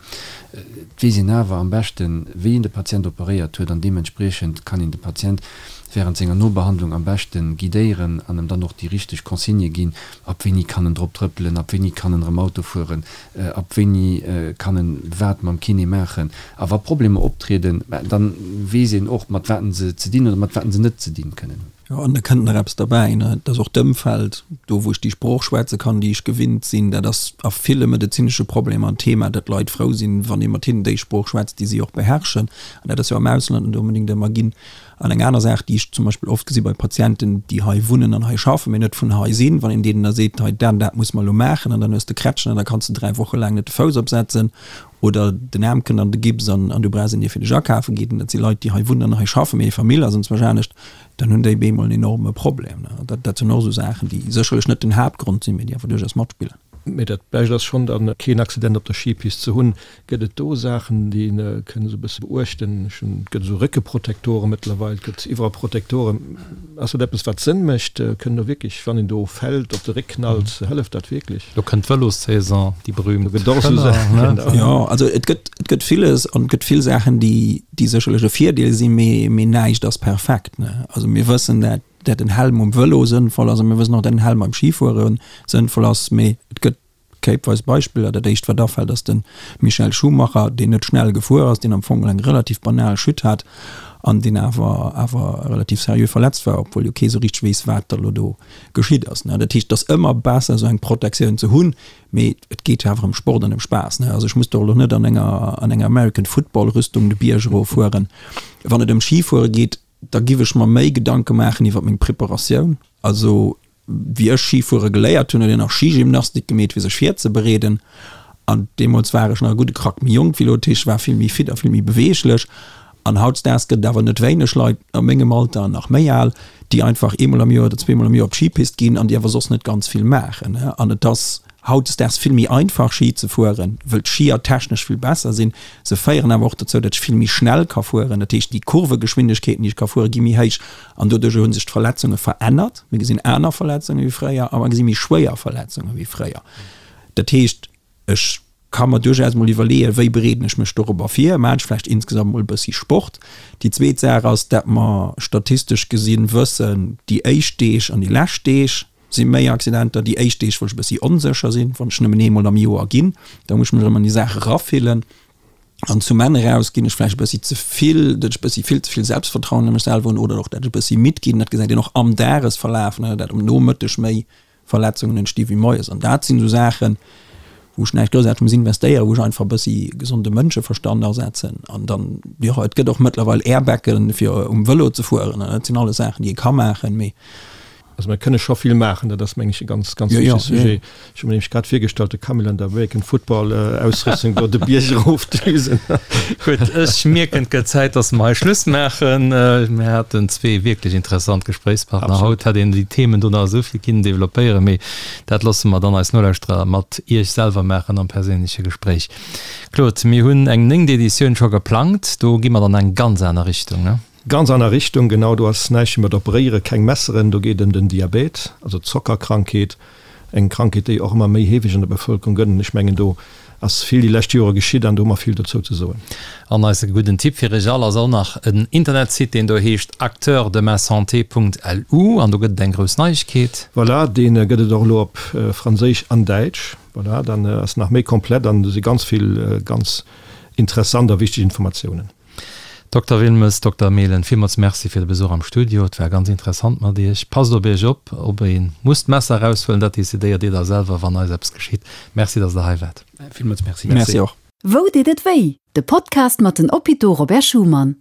Et weess een awer am beschten, wéi een de Patient operéiert huet an deementspriechend kann een de Patient während senger Nobehandlung am beschte guidéieren an em dann och déi richteg Consignë ginn, ab wéini kann en drop trëppelen, ab wéini kann en erëm Auto fueren, ab wéini kann en wat mam Kiné maachen. A wa Problemer optrieden, dann weess een och, mat wat se ze dinn oder mat wat se net ze dinn kënnen hunn. Jo, an da kënnt nach eppes derbäi, ne, et ass och d'Ëmfeld, do wou ech déi Sprooch schwätze kann, déi ech gewinnt sinn. Dat ass a ville medezinesche Problemer en Thema, datt Leit frou sinn, wann ee mat hinnen déi Sprooch schwätzt, déi si och beherrschen. An dat ass jo am Ausland net onbedéngt ëmmer ginn. An eng aner Saach, déi ech zum Beispill oft gesi bei Patienten, déi hei wunnen an hei schaffen, mee net vun hei sinn, wann een deenen da seet, hei dat an dat muss mer elo maachen an dann hues de Krätschen an da kanns de 3 Woche laang net de Fouss opsetzen oder den Aarm kënnt an de Gips an du brauchs een, dee fir dech akafe geet, an dat si Leit, déi hei wunnen an hei schaffen, mee hir Famill ass enzwousch anescht, dann hunn déi bemol en enorme Problem. Dat, dat sinn och esou Saachen, déi sécherlech net den Haaptgrond sinn, mee déi awer duerchaus matspillen. Mee dat Bescht ass schonn dann, keen Accident op der Skipist ze hunn. Gëtt et do Saachen, déi een kënn esou e bësse beuechten? Ech hunn, et gëtt esou Réckeprotektoren mëttlerweil, et gëtt iwwerall Protektoren. Ass dat eppes, wat Sënn mécht? Kënn do wierklech, wann een do fält, op de Réck knallt, hëlleft dat wierklech? Lo kënnt d'Vëlossaison, déi berühmt. Do gëtt och esou Saachen, genau. Jo, also et gëtt, et gëtt villes an et gëtt vill Saachen, déi, déi sécherlech e Virdeel sinn, mee, mee näischt ass perfekt, ne. Also mir wëssen, dat, dat en Helm um Vëlo sënnvoll ass a mir wëssen och, dat en Helm beim Schifuere sënnvoll ass, mee et gëtt Kéipweis Beispiller, Dat éischt wat afält ass de Michael Schumacher, deen net schnell gefuer ass, deen am Fong eng relativ banal Chute hat an deen awer awer relativ seriö verletzt war, obwuel jo kee sou richteg weess, wat da lo do geschitt ass. Dat heescht, et ass ëmmer besser esou eng Protektioun ze hunn, mee et geet jo awer ëm Sport an ëm Spaass. Also ech muss doch elo net an enger an enger American Football Rüstung de Bierg eroffueren. Wann et ëm Schifuere geet, da giff ech mer méi Gedanke maachen iwwer meng Preparatioun. Also Wéi ech Schifuere geléiert hunn, huet een nach Skigymnastik gemeet, fir sech virzebereeden. An deemools war ech nach e gudde Krack méi jonk wéi elo, dat heescht, ech war vill méi fit a vill méi beweeglech. An hautdesdaags gëtt et awer net wéineg Leit a mengem Alter an nach méi al, déi einfach eemol am Joer oder zweemol am Joer op d'Schipist ginn an déi awer soss net ganz vill maachen. An et ass hautdesdaags vill méi einfach Schi ze fueren, wëll d'Schier technesch vill besser sinn. Se féieren awer och dozou, datt ech vill méi schnell ka fueren. Dat heescht, déi Kurvegeschwindegkeeten, déi ech ka fueren, gi méi héich. An doduercher hu sech d'Verletzunge verännert. Mir gesinn aner Verletzunge wéi fréier a mer gesi méi schwéier Verletzunge wéi fréier. Dat heescht, ech ka mer duerchaus mol iwwerleeën, wéi bereeden ech mech dorobber vir? Maachen ech vläicht insgesamt mol e bëssi Sport? Déi zweet Saach ass, dat mer statistesch gesinn wëssen, déi éischt Deeg an déi lescht Deeg si méi Accidenter. Déi éischt Deeg, wou ech e bëssi onsécher sinn, wann ech nëmmen eemol am Joer ginn, da muss ech mech erëm an déi Saach erafillen. An zum Enn eraus ginn ech vläicht e bëssi ze vill, datt ech e bëssi vill ze vill Selbstvertrauen a mech selwer hunn oder och dat ech e bëssi midd ginn. Dat gesäit een och am Dagesverlaf, ne, dat um Nomëtteg méi Verletzungen entsti wéi moies. An dat sinn esou Saachen, wou ech näischt groussaarteg muss investéieren, wou ech einfach e bëssi gesonde Mënscheverstand asetzen. An dann, jo, et gëtt och mëttlerweil Airbaggen, fir um Vëlo ze fueren. Dat sinn alles Saachen, déi ee ka maachen, mee Also mir kënne scho vill maachen, dat ass meng ech e ganz, ganz wichtege Sujet. Ech hu mir nämlech grad virgestallt, de Camille an der American Football Ausrüstung do de Bierg erofdüsen. Gutt, ech mierken, et gëtt Zäit, dass mer hei Schluss maachen. Mir haten zwee wierklech interessant Gespréichspartner haut. Hätt een déi Themen do nach esou vill kinnen developpéieren, mee dat loosse mer dann eis Nolauschterer mat Iech selwer maachen am perséinleche Gespréich. Claude, mir hunn eng néngt Editioun scho geplangt, do gi mer dann eng ganz aner Richtung, ne? Ganz aner Richtung, genau, do ass näischt méi mat operéieren, keng Messeren, do geet ëm den Diabet, also d'Zockerkrankheet, eng Krankheet, déi och ëmmer méi heefeg an der Bevëlkerung gëtt. An ech mengen, do ass vill déi lescht Jore geschitt an do hu mer vill dozou ze soen. An eise gudden Tipp fir iech all ass och nach en Internetsite, deen do heescht acteursdemasanté.lu an do gëtt et eng grouss Neiegkeet. Voilà, dee gëtt et och elo op Franséisch an Däitsch. Voilà, dann ass nach méi komplett an do si ganz vill ganz interessant a wichteg Informatiounen. Dokter Wilmes, Dokter Mehlen, villmools Merci fir de Besuch am Studio. Et war ganz interessant mat Iech. Passt op Iech op. Ob ee muss d'Messer eraushuelen, dat decidéiert Dir da selwer, wann eis eppes geschitt. Merci, dass Der hei waart. Villmools Merci. Merci och. Wou deet et wéi? De Podcast mat den Hôpitaux Robert Schuman.